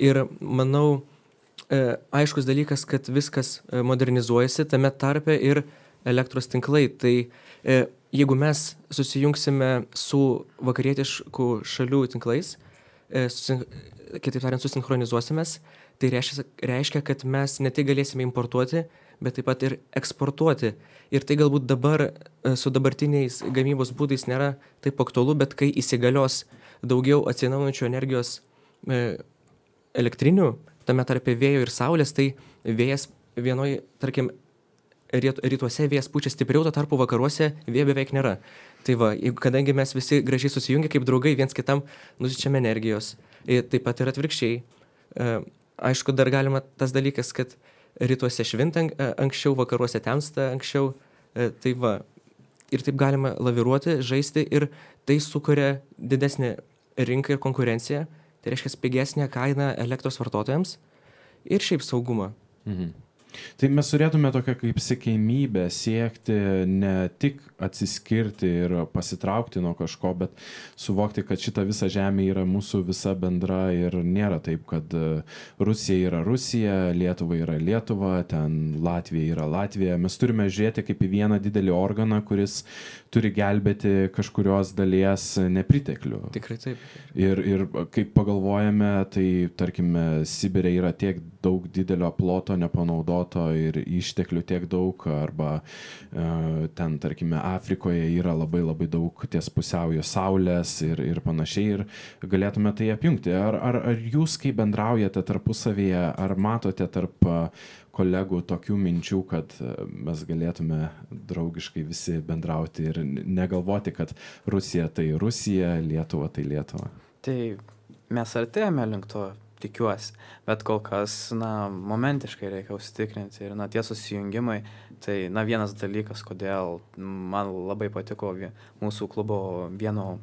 C: Ir manau, aiškus dalykas, kad viskas modernizuojasi, tame tarpe ir elektros tinklai. Tai jeigu mes susijungsime su vakarietiškų šalių tinklais, kitaip tariant, susinchronizuosimės, tai reiškia, kad mes ne tik galėsime importuoti, bet taip pat ir eksportuoti. Ir tai galbūt dabar su dabartiniais gamybos būdais nėra taip aktualu, bet kai įsigalios daugiau atsinaujinančių energijos elektrinių, tame tarpe vėjo ir saulės, tai vėjas vienoje, tarkim, rytuose vėjas pučia stipriau, tuo tarpu vakaruose vėjo beveik nėra. Tai va, kadangi mes visi gražiai susijungia kaip draugai, viens kitam nusičiame energijos, taip pat ir atvirkščiai. Aišku, dar galima tas dalykas, kad rytuose švinta anksčiau, vakaruose temsta anksčiau, tai va, ir taip galima laviruoti, žaisti ir tai sukuria didesnį rinką ir konkurenciją, tai reiškia pigesnę kainą elektros vartotojams ir šiaip saugumą.
A: Mhm. Tai mes turėtume tokią kaip siekiamybę siekti ne tik atsiskirti ir pasitraukti nuo kažko, bet suvokti, kad šita visa žemė yra mūsų visa bendra ir nėra taip, kad Rusija yra Rusija, Lietuva yra Lietuva, ten Latvija yra Latvija. Mes turime žiūrėti kaip į vieną didelį organą, kuris turi gelbėti kažkurios dalies nepriteklių.
C: Tikrai taip.
A: Ir kaip pagalvojame, tai tarkime, Sibire yra tiek daug didelio ploto nepanaudoto ir išteklių tiek daug, arba ten, tarkime, Afrikoje yra labai labai daug ties pusiaujo saulės ir panašiai, ir galėtume tai apjungti. Ar jūs, kai bendraujate tarpusavyje, ar matote tarp kolegų tokių minčių, kad mes galėtume draugiškai visi bendrauti ir negalvoti, kad Rusija tai Rusija, Lietuva tai Lietuva?
B: Tai mes artėjame link to, tikiuosi, bet kol kas, momentiškai reikia užsitikrinti ir, tie susijungimai, tai, vienas dalykas, kodėl man labai patiko mūsų klubo vieno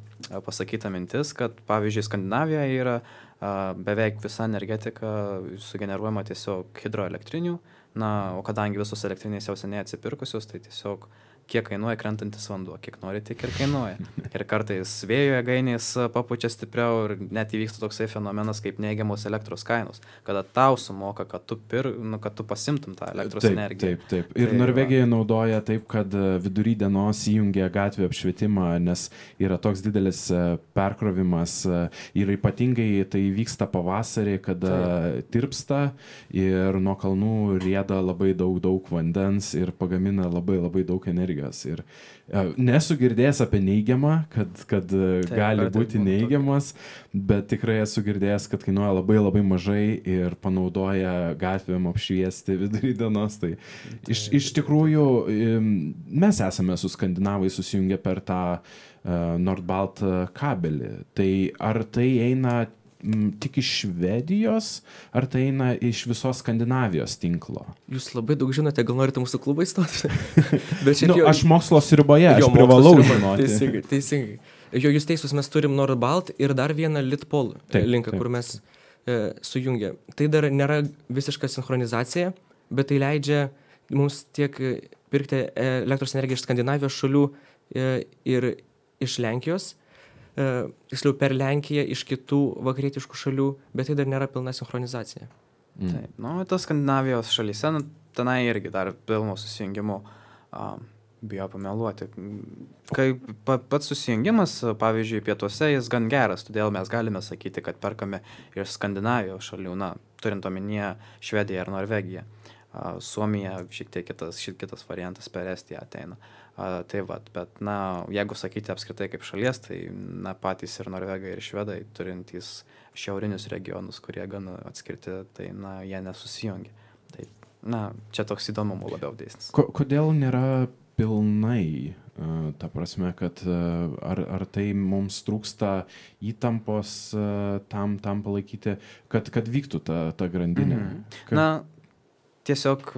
B: pasakyta mintis, kad, pavyzdžiui, Skandinavijoje yra beveik visa energetika sugeneruojama tiesiog hidroelektrinių, o kadangi visos elektrinės jau seniai atsipirkusios, tai tiesiog kiek kainuoja krentantis vanduo, kiek nori, tiek ir kainuoja. Ir kartais vėjo jėgainės papučia stipriau ir net įvyksta toksai fenomenas kaip neigiamos elektros kainos, kada tau sumoka, kad tu pasimtum tą elektros energiją.
A: Taip. Ir Norvegija naudoja taip, kad vidury dienos įjungia gatvę apšvietimą, nes yra toks didelis perkrovimas ir ypatingai tai vyksta pavasarį, kada tirpsta ir nuo kalnų rieda labai daug vandens ir pagamina labai daug energijos. Ir nesu girdėjęs apie neigiamą, kad gali būti neigiamas, bet tikrai esu girdėjęs, kad kainuoja labai mažai ir panaudoja gatvėm apšviesti vidury dienos. Tai iš tikrųjų mes esame su skandinavai susijungę per tą Nordbalt kabelį. Tai ar tai eina tik iš Švedijos, ar tai eina iš visos Skandinavijos tinklo?
C: Jūs labai daug žinote, gal norite mūsų klubą įstoti?
A: Aš mokslo sriuboje, aš privalau žinoti.
C: Teisingai. Jūs teisus, mes turim Nordbalt ir dar vieną Litpol linką, kur mes sujungia. Tai dar nėra visiška sinchronizacija, bet tai leidžia mums tiek pirkti elektros energiją iš Skandinavijos šalių ir iš Lenkijos, tiksliau per Lenkiją iš kitų vakarietiškų šalių, bet tai dar nėra pilna sinchronizacija.
B: Taip, tas Skandinavijos šalyse, tenai irgi dar pilno susijungimo bijo pameluoti. Kai pats susijungimas, pavyzdžiui, pietuose jis gan geras, todėl mes galime sakyti, kad perkame iš Skandinavijos šalių, turint omenyje Švediją ir Norvegiją. Suomija šiek tiek kitas variantas per Estiją ateina. Tai bet, jeigu sakyti apskritai kaip šalies, tai patys ir Norvegai, ir Švedai, turintys šiaurinius regionus, kurie gan atskirti, tai jie nesusijungia. Tai, čia toks įdomumo labiau dėsnis.
A: Kodėl nėra pilnai? Ta prasme, kad ar tai mums trūksta įtampos tam palaikyti, kad vyktų ta grandinė?
B: Tiesiog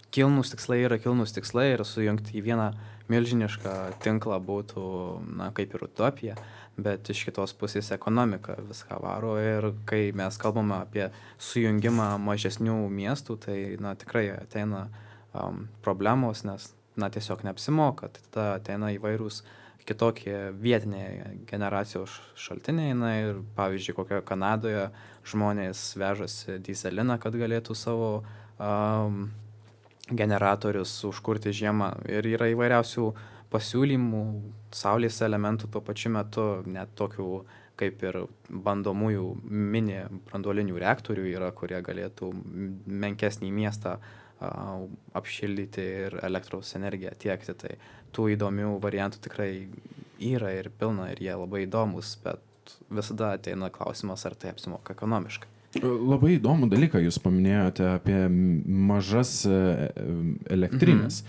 B: kilnūs tikslai ir sujungti į vieną milžinišką tinklą būtų, kaip ir utopija, bet iš kitos pusės ekonomika viską varo ir kai mes kalbame apie sujungimą mažesnių miestų, tai, tikrai ateina problemos, nes, tiesiog neapsimoka, tai tada ateina įvairūs kitokie vietiniai generacijos šaltiniai. Na ir pavyzdžiui, kokioje Kanadoje žmonės vežasi dyzeliną, kad galėtų savo generatorius užkurti žiemą. Ir yra įvairiausių pasiūlymų, saulės elementų tuo pačiu metu, net tokių kaip ir bandomųjų mini branduolinių reaktorių yra, kurie galėtų menkesnį miestą apšildyti ir elektros energiją tiekti. Tai tų įdomių variantų tikrai yra ir pilna ir jie labai įdomus, bet visada ateina klausimas, ar tai apsimoka ekonomiškai.
A: Labai įdomų dalyką jūs paminėjote apie mažas elektrinės,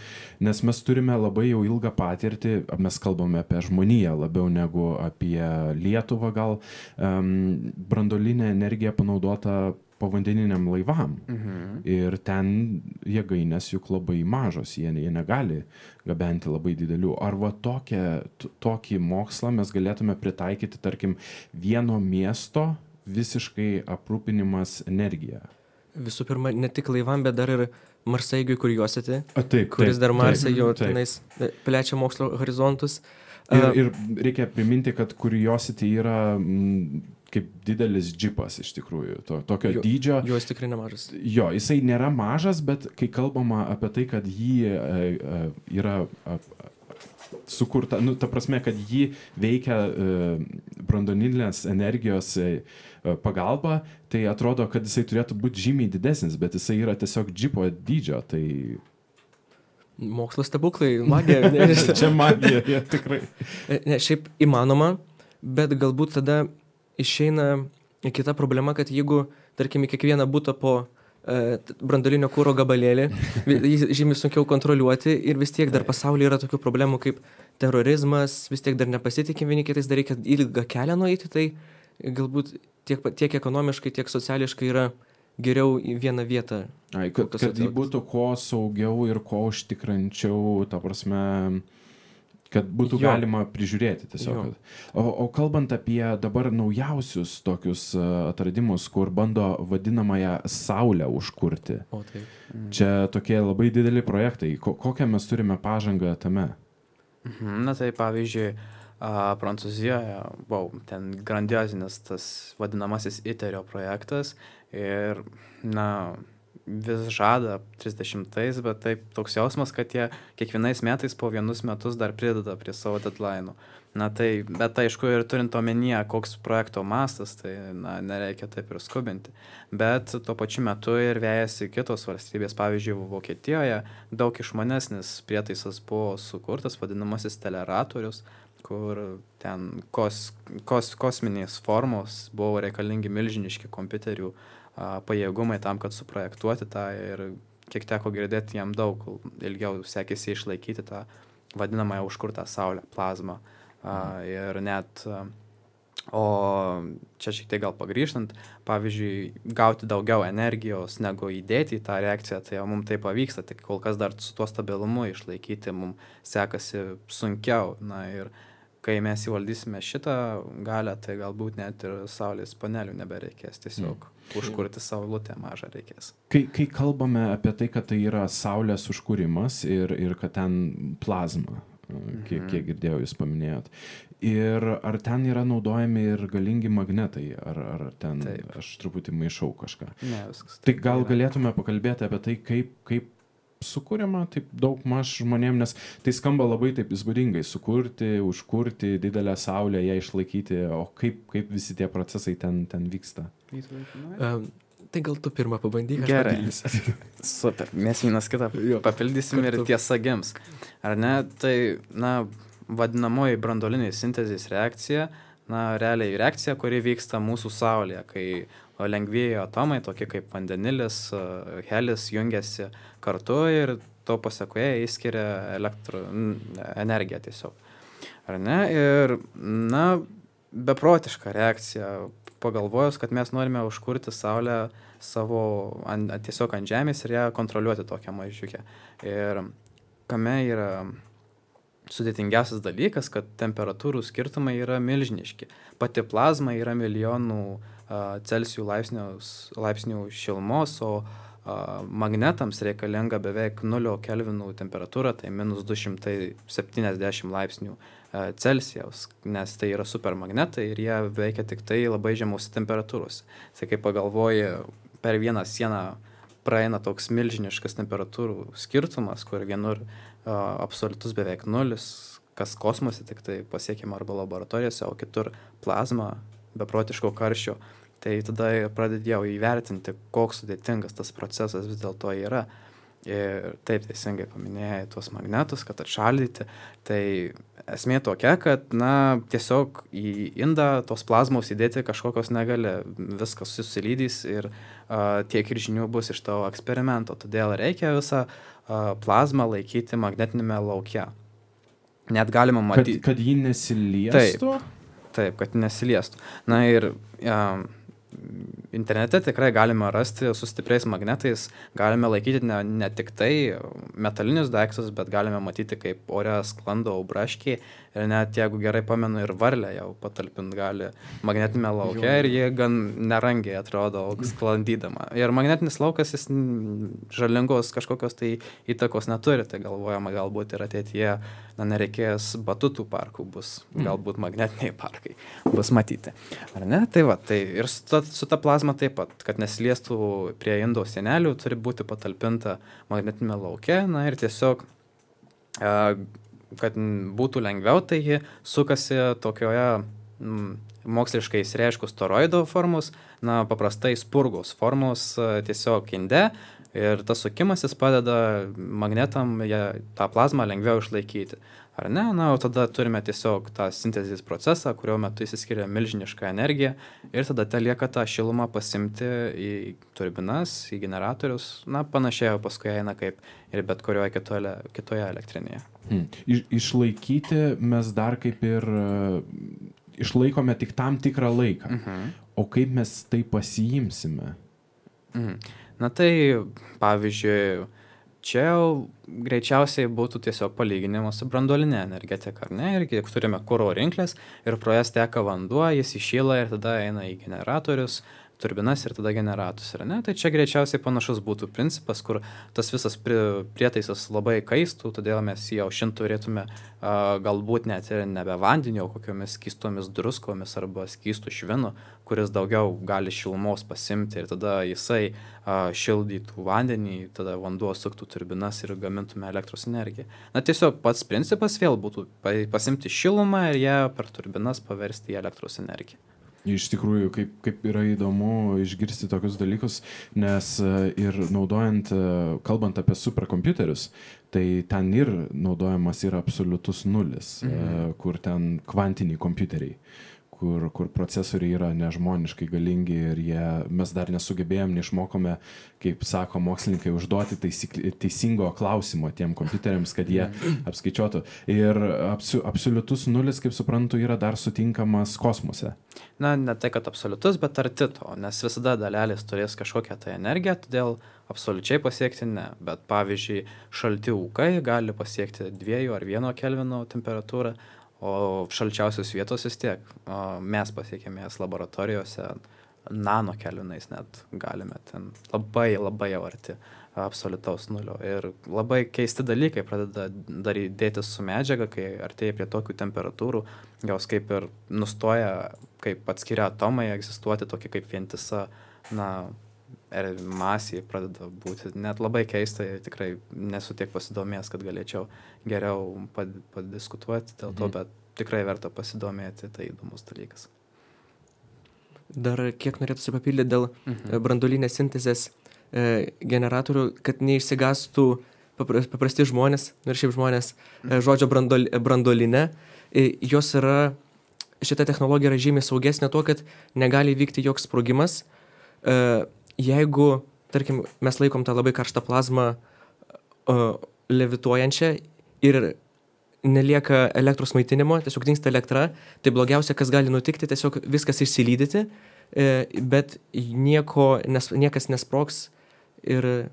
A: nes mes turime labai jau ilgą patirtį, mes kalbame apie žmoniją labiau negu apie Lietuvą, gal branduolinė energija panaudota povandeniniam laivam. Ir ten jėgainės juk labai mažos, jie negali gabenti labai didelių. Ar va tokį mokslą mes galėtume pritaikyti, tarkim, vieno miesto visiškai aprūpinimas energija?
C: Visų pirma, ne tik laivam, bet dar ir Marsaigiui Curiosity,
A: taip,
C: kuris dar Marsai jau tenais plečia mokslo horizontus.
A: Ir reikia priminti, kad Curiosity yra kaip didelis džipas iš tikrųjų, tokio dydžio.
C: Jo, jis tikrai nemažas.
A: Jo, jisai nėra mažas, bet kai kalbama apie tai, kad jį yra sukurta, ta prasme, kad jį veikia branduolinės energijos pagalba, tai atrodo, kad jisai turėtų būti žymiai didesnis, bet jisai yra tiesiog džipo dydžio, tai...
C: Mokslo stebuklai, magija.
A: Čia magija, ja, tikrai.
C: Ne, šiaip įmanoma, bet galbūt tada išeina kita problema, kad jeigu, tarkim, į kiekvieną butą po branduolinio kuro gabalėlį, jį žymiai sunkiau kontroliuoti ir vis tiek dar pasaulyje yra tokių problemų kaip terorizmas, vis tiek dar nepasitikim vieni kitais, dar reikia ilgą kelią nueiti, tai galbūt tiek ekonomiškai, tiek sociališkai yra geriau į vieną vietą.
A: Kad jį būtų kuo saugiau ir kuo užtikrančiau, ta prasme, kad būtų galima prižiūrėti tiesiog. O kalbant apie dabar naujausius tokius atradimus, kur bando vadinamąją Saulę užkurti.
C: O taip.
A: Čia tokie labai dideli projektai. Kokią mes turime pažangą tame?
B: Na tai pavyzdžiui, Prancūzijoje, ten grandiozinis tas vadinamasis ITERio projektas ir, vis žada 30-ais, bet taip toks jausmas, kad jie kiekvienais metais po vienus metus dar prideda prie savo deadline'ų. Bet aišku, ir turint omenyje, koks projekto mastas, tai nereikia taip ir skubinti. Bet tuo pačiu metu ir vejasi kitos valstybės. Pavyzdžiui, Vokietijoje daug išmanesnis prietaisas buvo sukurtas, vadinamasis teleratorius, kur ten kosminės formos buvo reikalingi milžiniški kompiuterių pajėgumai tam, kad suprojektuoti tą ir kiek teko girdėti, jam daug ilgiau sekėsi išlaikyti tą vadinamąją užkurtą saulę, plazmą. Ir net, o čia šiek tiek gal pagrįžtant, pavyzdžiui, gauti daugiau energijos negu įdėti į tą reakciją, tai mums tai pavyksta, tik kol kas dar su tuo stabilumu išlaikyti mums sekasi sunkiau. Ir kai mes įvaldysime šitą galią, tai galbūt net ir saulės panelių nebereikės, tiesiog užkurti saulutę mažą reikės.
A: Kai kalbame apie tai, kad tai yra saulės užkūrimas ir kad ten plazma, kiek girdėjau jūs paminėjot, ir ar ten yra naudojami ir galingi magnetai, ar ten aš truputį maišau kažką.
B: Ne, viskas.
A: Tai gal galėtume pakalbėti apie tai, kaip sukūriama taip daug maž žmonėm, nes tai skamba labai taip įspūdingai, sukurti, užkurti didelę saulę, ją išlaikyti, o kaip visi tie procesai ten vyksta?
C: Tai gal tu pirmą pabandyk, aš
B: papildysiu. Super, mes vienas kitą papildysim ir tiesa gims. Ar ne? Tai, vadinamoji branduolinė sintezės reakcija, realiai reakcija, kuri vyksta mūsų Saulėje, kai lengvieji atomai, tokie kaip vandenilis, helis, jungiasi kartu ir to pasekoje įskiria energiją tiesiog. Ar ne? Ir, beprotiška reakcija, pagalvojus, kad mes norime užkurti Saulę tiesiog ant Žemės ir ją kontroliuoti tokią mažiukę. Ir kame yra sudėtingiausias dalykas, kad temperatūrų skirtumai yra milžiniški. Pati plazma yra milijonų Celsijų laipsnių šilumos, o magnetams reikalinga beveik 0 kelvinų temperatūra, tai minus 270 laipsnių Celsijaus, nes tai yra supermagnetai ir jie veikia tik tai labai žemos temperatūros. Tai kai pagalvoji, per vieną sieną praeina toks milžiniškas temperatūrų skirtumas, kur vienur absoliutus beveik nulis, kas kosmose tik tai pasiekiama arba laboratorijose, o kitur plazma beprotiško karščio. Tai tada pradėjau įvertinti, koks sudėtingas tas procesas vis dėlto yra. Ir taip teisingai paminėjai tuos magnetus, kad atšaldyti. Tai esmė tokia, kad tiesiog į indą tos plazmos įdėti kažkokios negali, viskas susilydys ir tiek ir žinių bus iš tavo eksperimento. Todėl reikia visą plazmą laikyti magnetinėme lauke. Net galima matyti.
A: Kad jį nesiliestų?
B: Taip, kad nesiliestų. Na ir internete tikrai galime rasti su stipriais magnetais, galime laikyti ne tik tai metalinius daiktus, bet galime matyti, kaip ore sklando braškiai ir net, jeigu gerai pamenu, ir varlę jau patalpint gali magnetinėme lauke ir jie gan nerangiai atrodo sklandydama. Ir magnetinis laukas, jis žalingos kažkokios tai įtakos neturi, tai galvojama galbūt ir ateityje nereikės batutų parkų, bus galbūt magnetiniai parkai bus matyti. Ar ne? Tai va, tai ir su ta plazma taip pat, kad nesiliestų prie indo sienelių, turi būti patalpinta magnetinėme lauke, ir tiesiog, kad būtų lengviau, tai ji sukasi tokioje moksliškai išreiškus toroido formos, paprastai spurgos formos tiesiog inde, ir tas sukimasis padeda magnetam tą plazmą lengviau išlaikyti. Ar ne? O tada turime tiesiog tą sintezės procesą, kurio metu įsiskiria milžiniška energija ir tada lieka tą šilumą pasimti į turbinas, į generatorius, panašiai paskui eina kaip ir bet kurioje kitoje elektrinėje.
A: Išlaikyti mes dar kaip ir išlaikome tik tam tikrą laiką. O kaip mes tai pasiimsime?
B: Tai pavyzdžiui, čia jau greičiausiai būtų tiesiog palyginimas su branduoline energetika, ar ne? Ir jeigu turime kuro rinklės ir pro jas teka vanduo, jis įšyla ir tada eina į generatorius, turbinas ir tada generatorius, ar ne? Tai čia greičiausiai panašus būtų principas, kur tas visas prietaisas labai kaistų, todėl mes jį aušinti turėtume galbūt net ir nebe vandenio, kokiomis skystomis druskomis arba skystų švinu, kuris daugiau gali šilumos pasimti ir tada jisai šildytų vandenį, tada vanduo suktų turbinas ir gamintume elektros energiją. Tiesiog pats principas vėl būtų pasimti šilumą ir ją per turbinas paversti į elektros energiją.
A: Iš tikrųjų, kaip yra įdomu išgirsti tokius dalykus, nes ir naudojant, kalbant apie superkompiuterius, tai ten ir naudojamas yra absoliutus nulis, kur ten kvantiniai kompiuteriai, kur procesoriai yra nežmoniškai galingi ir mes dar nesugebėjom, neišmokome, kaip sako mokslininkai, užduoti teisingo klausimo tiem kompiuteriams, kad jie apskaičiuotų. Ir absoliutus nulis, kaip suprantu, yra dar sutinkamas kosmose.
B: Ne tai, kad absoliutus, bet arti to, nes visada dalelės turės kažkokią tai energiją, todėl absoliučiai pasiekti ne. Bet pavyzdžiui, šalti ūkai gali pasiekti 2 ar 1 kelvino temperatūrą, o šalčiausios vietos vis tiek mes pasiekėme jas laboratorijose nano kelvinais net galime ten labai jau arti absoliutaus nulio. Ir labai keisti dalykai pradeda dėtis su medžiaga, kai artėja prie tokių temperatūrų, jos kaip ir nustoja, kaip atskiria atomai egzistuoti, tokia kaip vientisa, masė pradeda būti net labai keista, tikrai nesu tiek pasidomėjęs, kad galėčiau geriau padiskutuoti dėl to, bet tikrai verta pasidomėti, tai įdomus dalykas.
C: Dar kiek norėtųsi papildyti dėl branduolinės sintezės generatorių, kad neišsigastų paprasti žmonės, ir šiaip žmonės, žodžio branduolinė, jos yra, šita technologija yra žymiai saugesnė tuo, kad negali vykti joks sprogimas. Jeigu, tarkim, mes laikom tą labai karštą plazmą levituojančią ir nelieka elektros maitinimo, tiesiog dingsta elektra, tai blogiausia, kas gali nutikti, tiesiog viskas išsilydyti, bet niekas nesprogs ir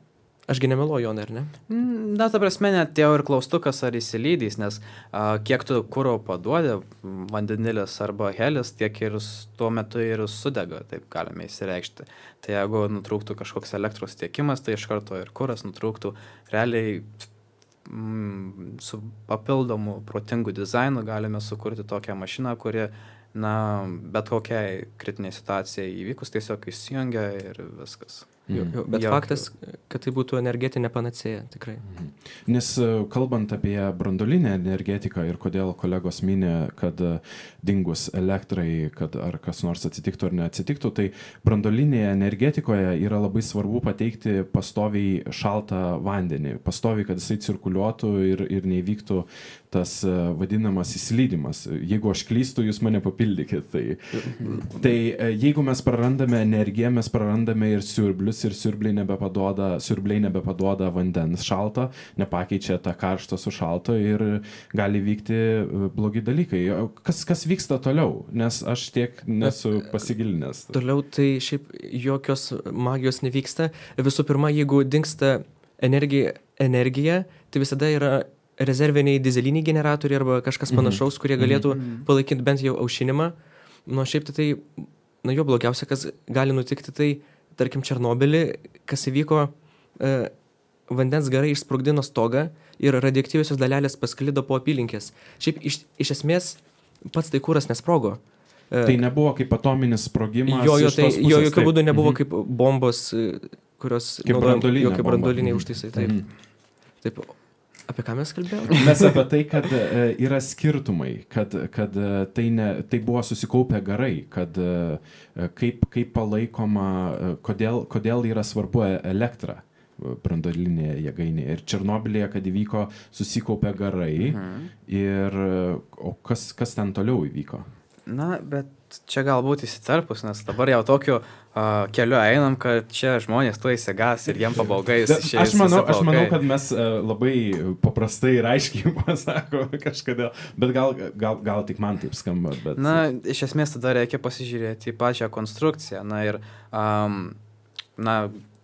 C: Ašgi nemeluoju, Jonai, ar ne?
B: Na, ta prasme, net jau ir klaustukas ar įsilydys, nes kiek tu kuro paduodi, vandenilis arba helis, tiek ir tuo metu ir sudega, taip galime įsireikšti. Tai jeigu nutrūktų kažkoks elektros tiekimas, tai iš karto ir kuras nutrūktų. Realiai su papildomu protingu dizainu galime sukurti tokią mašiną, kuri, bet kokiai kritiniai situacijai įvykus tiesiog įsijungia ir viskas.
C: Bet faktas, kad tai būtų energetinė panacėja, tikrai.
A: Nes kalbant apie branduolinę energetiką ir kodėl kolegos minė, kad dingus elektrai, kad ar kas nors atsitiktų ar neatsitiktų, tai branduolinėje energetikoje yra labai svarbu pateikti pastoviai šaltą vandenį, pastoviai, kad jisai cirkuliuotų ir neįvyktų tas vadinamas įsilydimas. Jeigu aš klystu, jūs mane papildykit. Tai jeigu mes prarandame energiją, mes prarandame ir siurblius, ir siurbliai nebepaduoda vandens šalto, nepakeičia tą karštą su šalto ir gali vykti blogi dalykai. Kas vyksta toliau? Nes aš tiek nesu pasigilinęs.
C: Toliau tai šiaip jokios magijos nevyksta. Visų pirma, jeigu dingsta energija, tai visada yra rezerviniai dizeliniai generatoriai arba kažkas panašaus, kurie galėtų palaikyti bent jau aušinimą. Šiaip tai, jo blogiausia, kas gali nutikti, tai, tarkim, Černobylį, kas įvyko, vandens garai išsprogdino stogą ir radioaktyviosios dalelės pasklido po apylinkės. Šiaip iš esmės pats tai kuras nesprogo.
A: Tai nebuvo kaip atominis sprogimas.
C: Jo jokių būdų nebuvo kaip bombos, kurios
A: kaip
C: branduoliniai užtaisai. Taip. Apie ką mes kalbėjome?
A: Mes apie tai, kad yra skirtumai, kad tai buvo susikaupę garai, kad kaip palaikoma, kodėl yra svarbu elektra branduolinėje jėgainėje. Ir Černobylyje, kad įvyko, susikaupę garai, o kas ten toliau įvyko?
B: Bet čia galbūt įsiterpus, nes dabar jau tokiu keliu einam, kad čia žmonės tuo įsigas ir jiem pabaugais.
A: Aš manau, kad mes labai paprastai ir aiškiai pasako kažkodėl, bet gal tik man taip skamba. Bet...
B: Iš esmės tada reikia pasižiūrėti į pačią konstrukciją.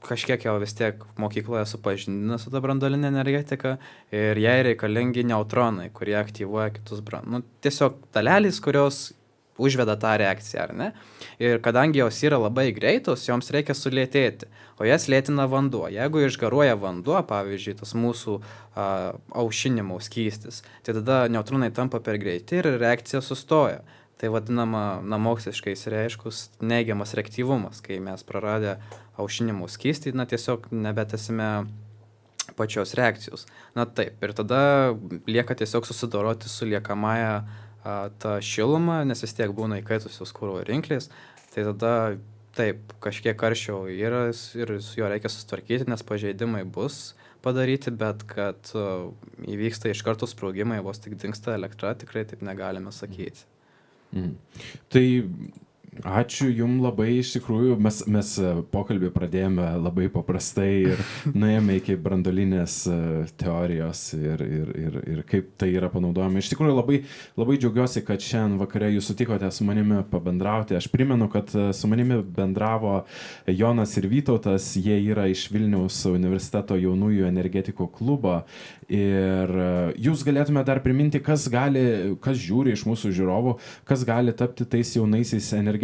B: Kažkiek jau vis tiek mokykloje supažindina su ta branduolinė energetika ir jai reikalingi neutronai, kurie aktyvuoja kitus tiesiog dalelės, kurios užveda tą reakciją, ar ne? Ir kadangi jos yra labai greitos, joms reikia sulėtėti, o jas lėtina vanduo. Jeigu išgaruoja vanduo, pavyzdžiui, tas mūsų aušinimo skystis, tai tada neutronai tampa per greiti ir reakcija sustoja. Tai vadinama, moksliškai išreiškus neigiamas reaktyvumas, kai mes praradę aušinimo skystį, tiesiog nebetesime pačios reakcijos. Taip, ir tada lieka tiesiog susidoroti su liekamąją tą šilumą, nes vis tiek būna įkaitusios kuro rinklės, tai tada taip, kažkiek karščio yra ir su juo reikia sustvarkyti, nes pažeidimai bus padaryti, bet kad įvyksta iš karto sprogimai, vos tik dingsta elektra, tikrai taip negalime sakyti.
A: Tai ačiū jums labai, iš tikrųjų, mes pokalbį pradėjome labai paprastai ir nuėjome iki branduolinės teorijos ir kaip tai yra panaudojama. Iš tikrųjų labai džiaugiuosi, kad šiandien vakare jūs sutikote su manimi pabendrauti. Aš primenu, kad su manimi bendravo Jonas ir Vytautas, jie yra iš Vilniaus universiteto jaunųjų energetikų klubo ir jūs galėtume dar priminti, kas žiūri iš mūsų žiūrovų, kas gali tapti tais jaunaisiais energetikais.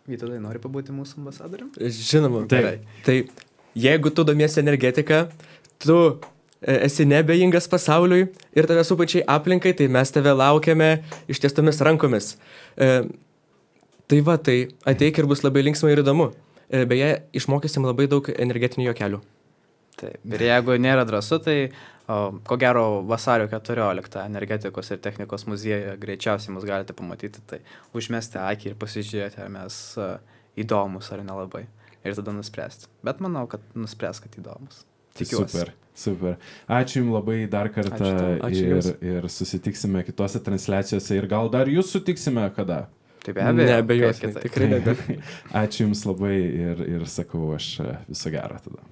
B: Vytautai, nori pabūti mūsų ambasadorium?
C: Žinoma. Tai jeigu tu domiesi energetiką, tu esi neabejingas pasauliui ir tave supančiai aplinkai, tai mes tave laukiame ištiestomis rankomis. Tai ateik ir bus labai linksma ir įdomu. Beje, išmokysim labai daug energetinių juokelių.
B: Taip, ir jeigu nėra drąsu, tai ko gero vasario 14 energetikos ir technikos muziejuje greičiausiai mus galite pamatyti, tai užmesti akį ir pasižiūrėti, ar mes įdomus ar nelabai. Ir tada nuspręsti. Bet manau, kad nuspręs, kad įdomus. Tikiuosi.
A: Super. Ačiū jums labai dar kartą. Ir susitiksime kitose transliacijose ir gal dar jūs sutiksime kada.
B: Taip, be abejo.
C: Neabejotinai, tikrai neabejotinai.
A: Ačiū jums labai ir sakau aš viso gero tada.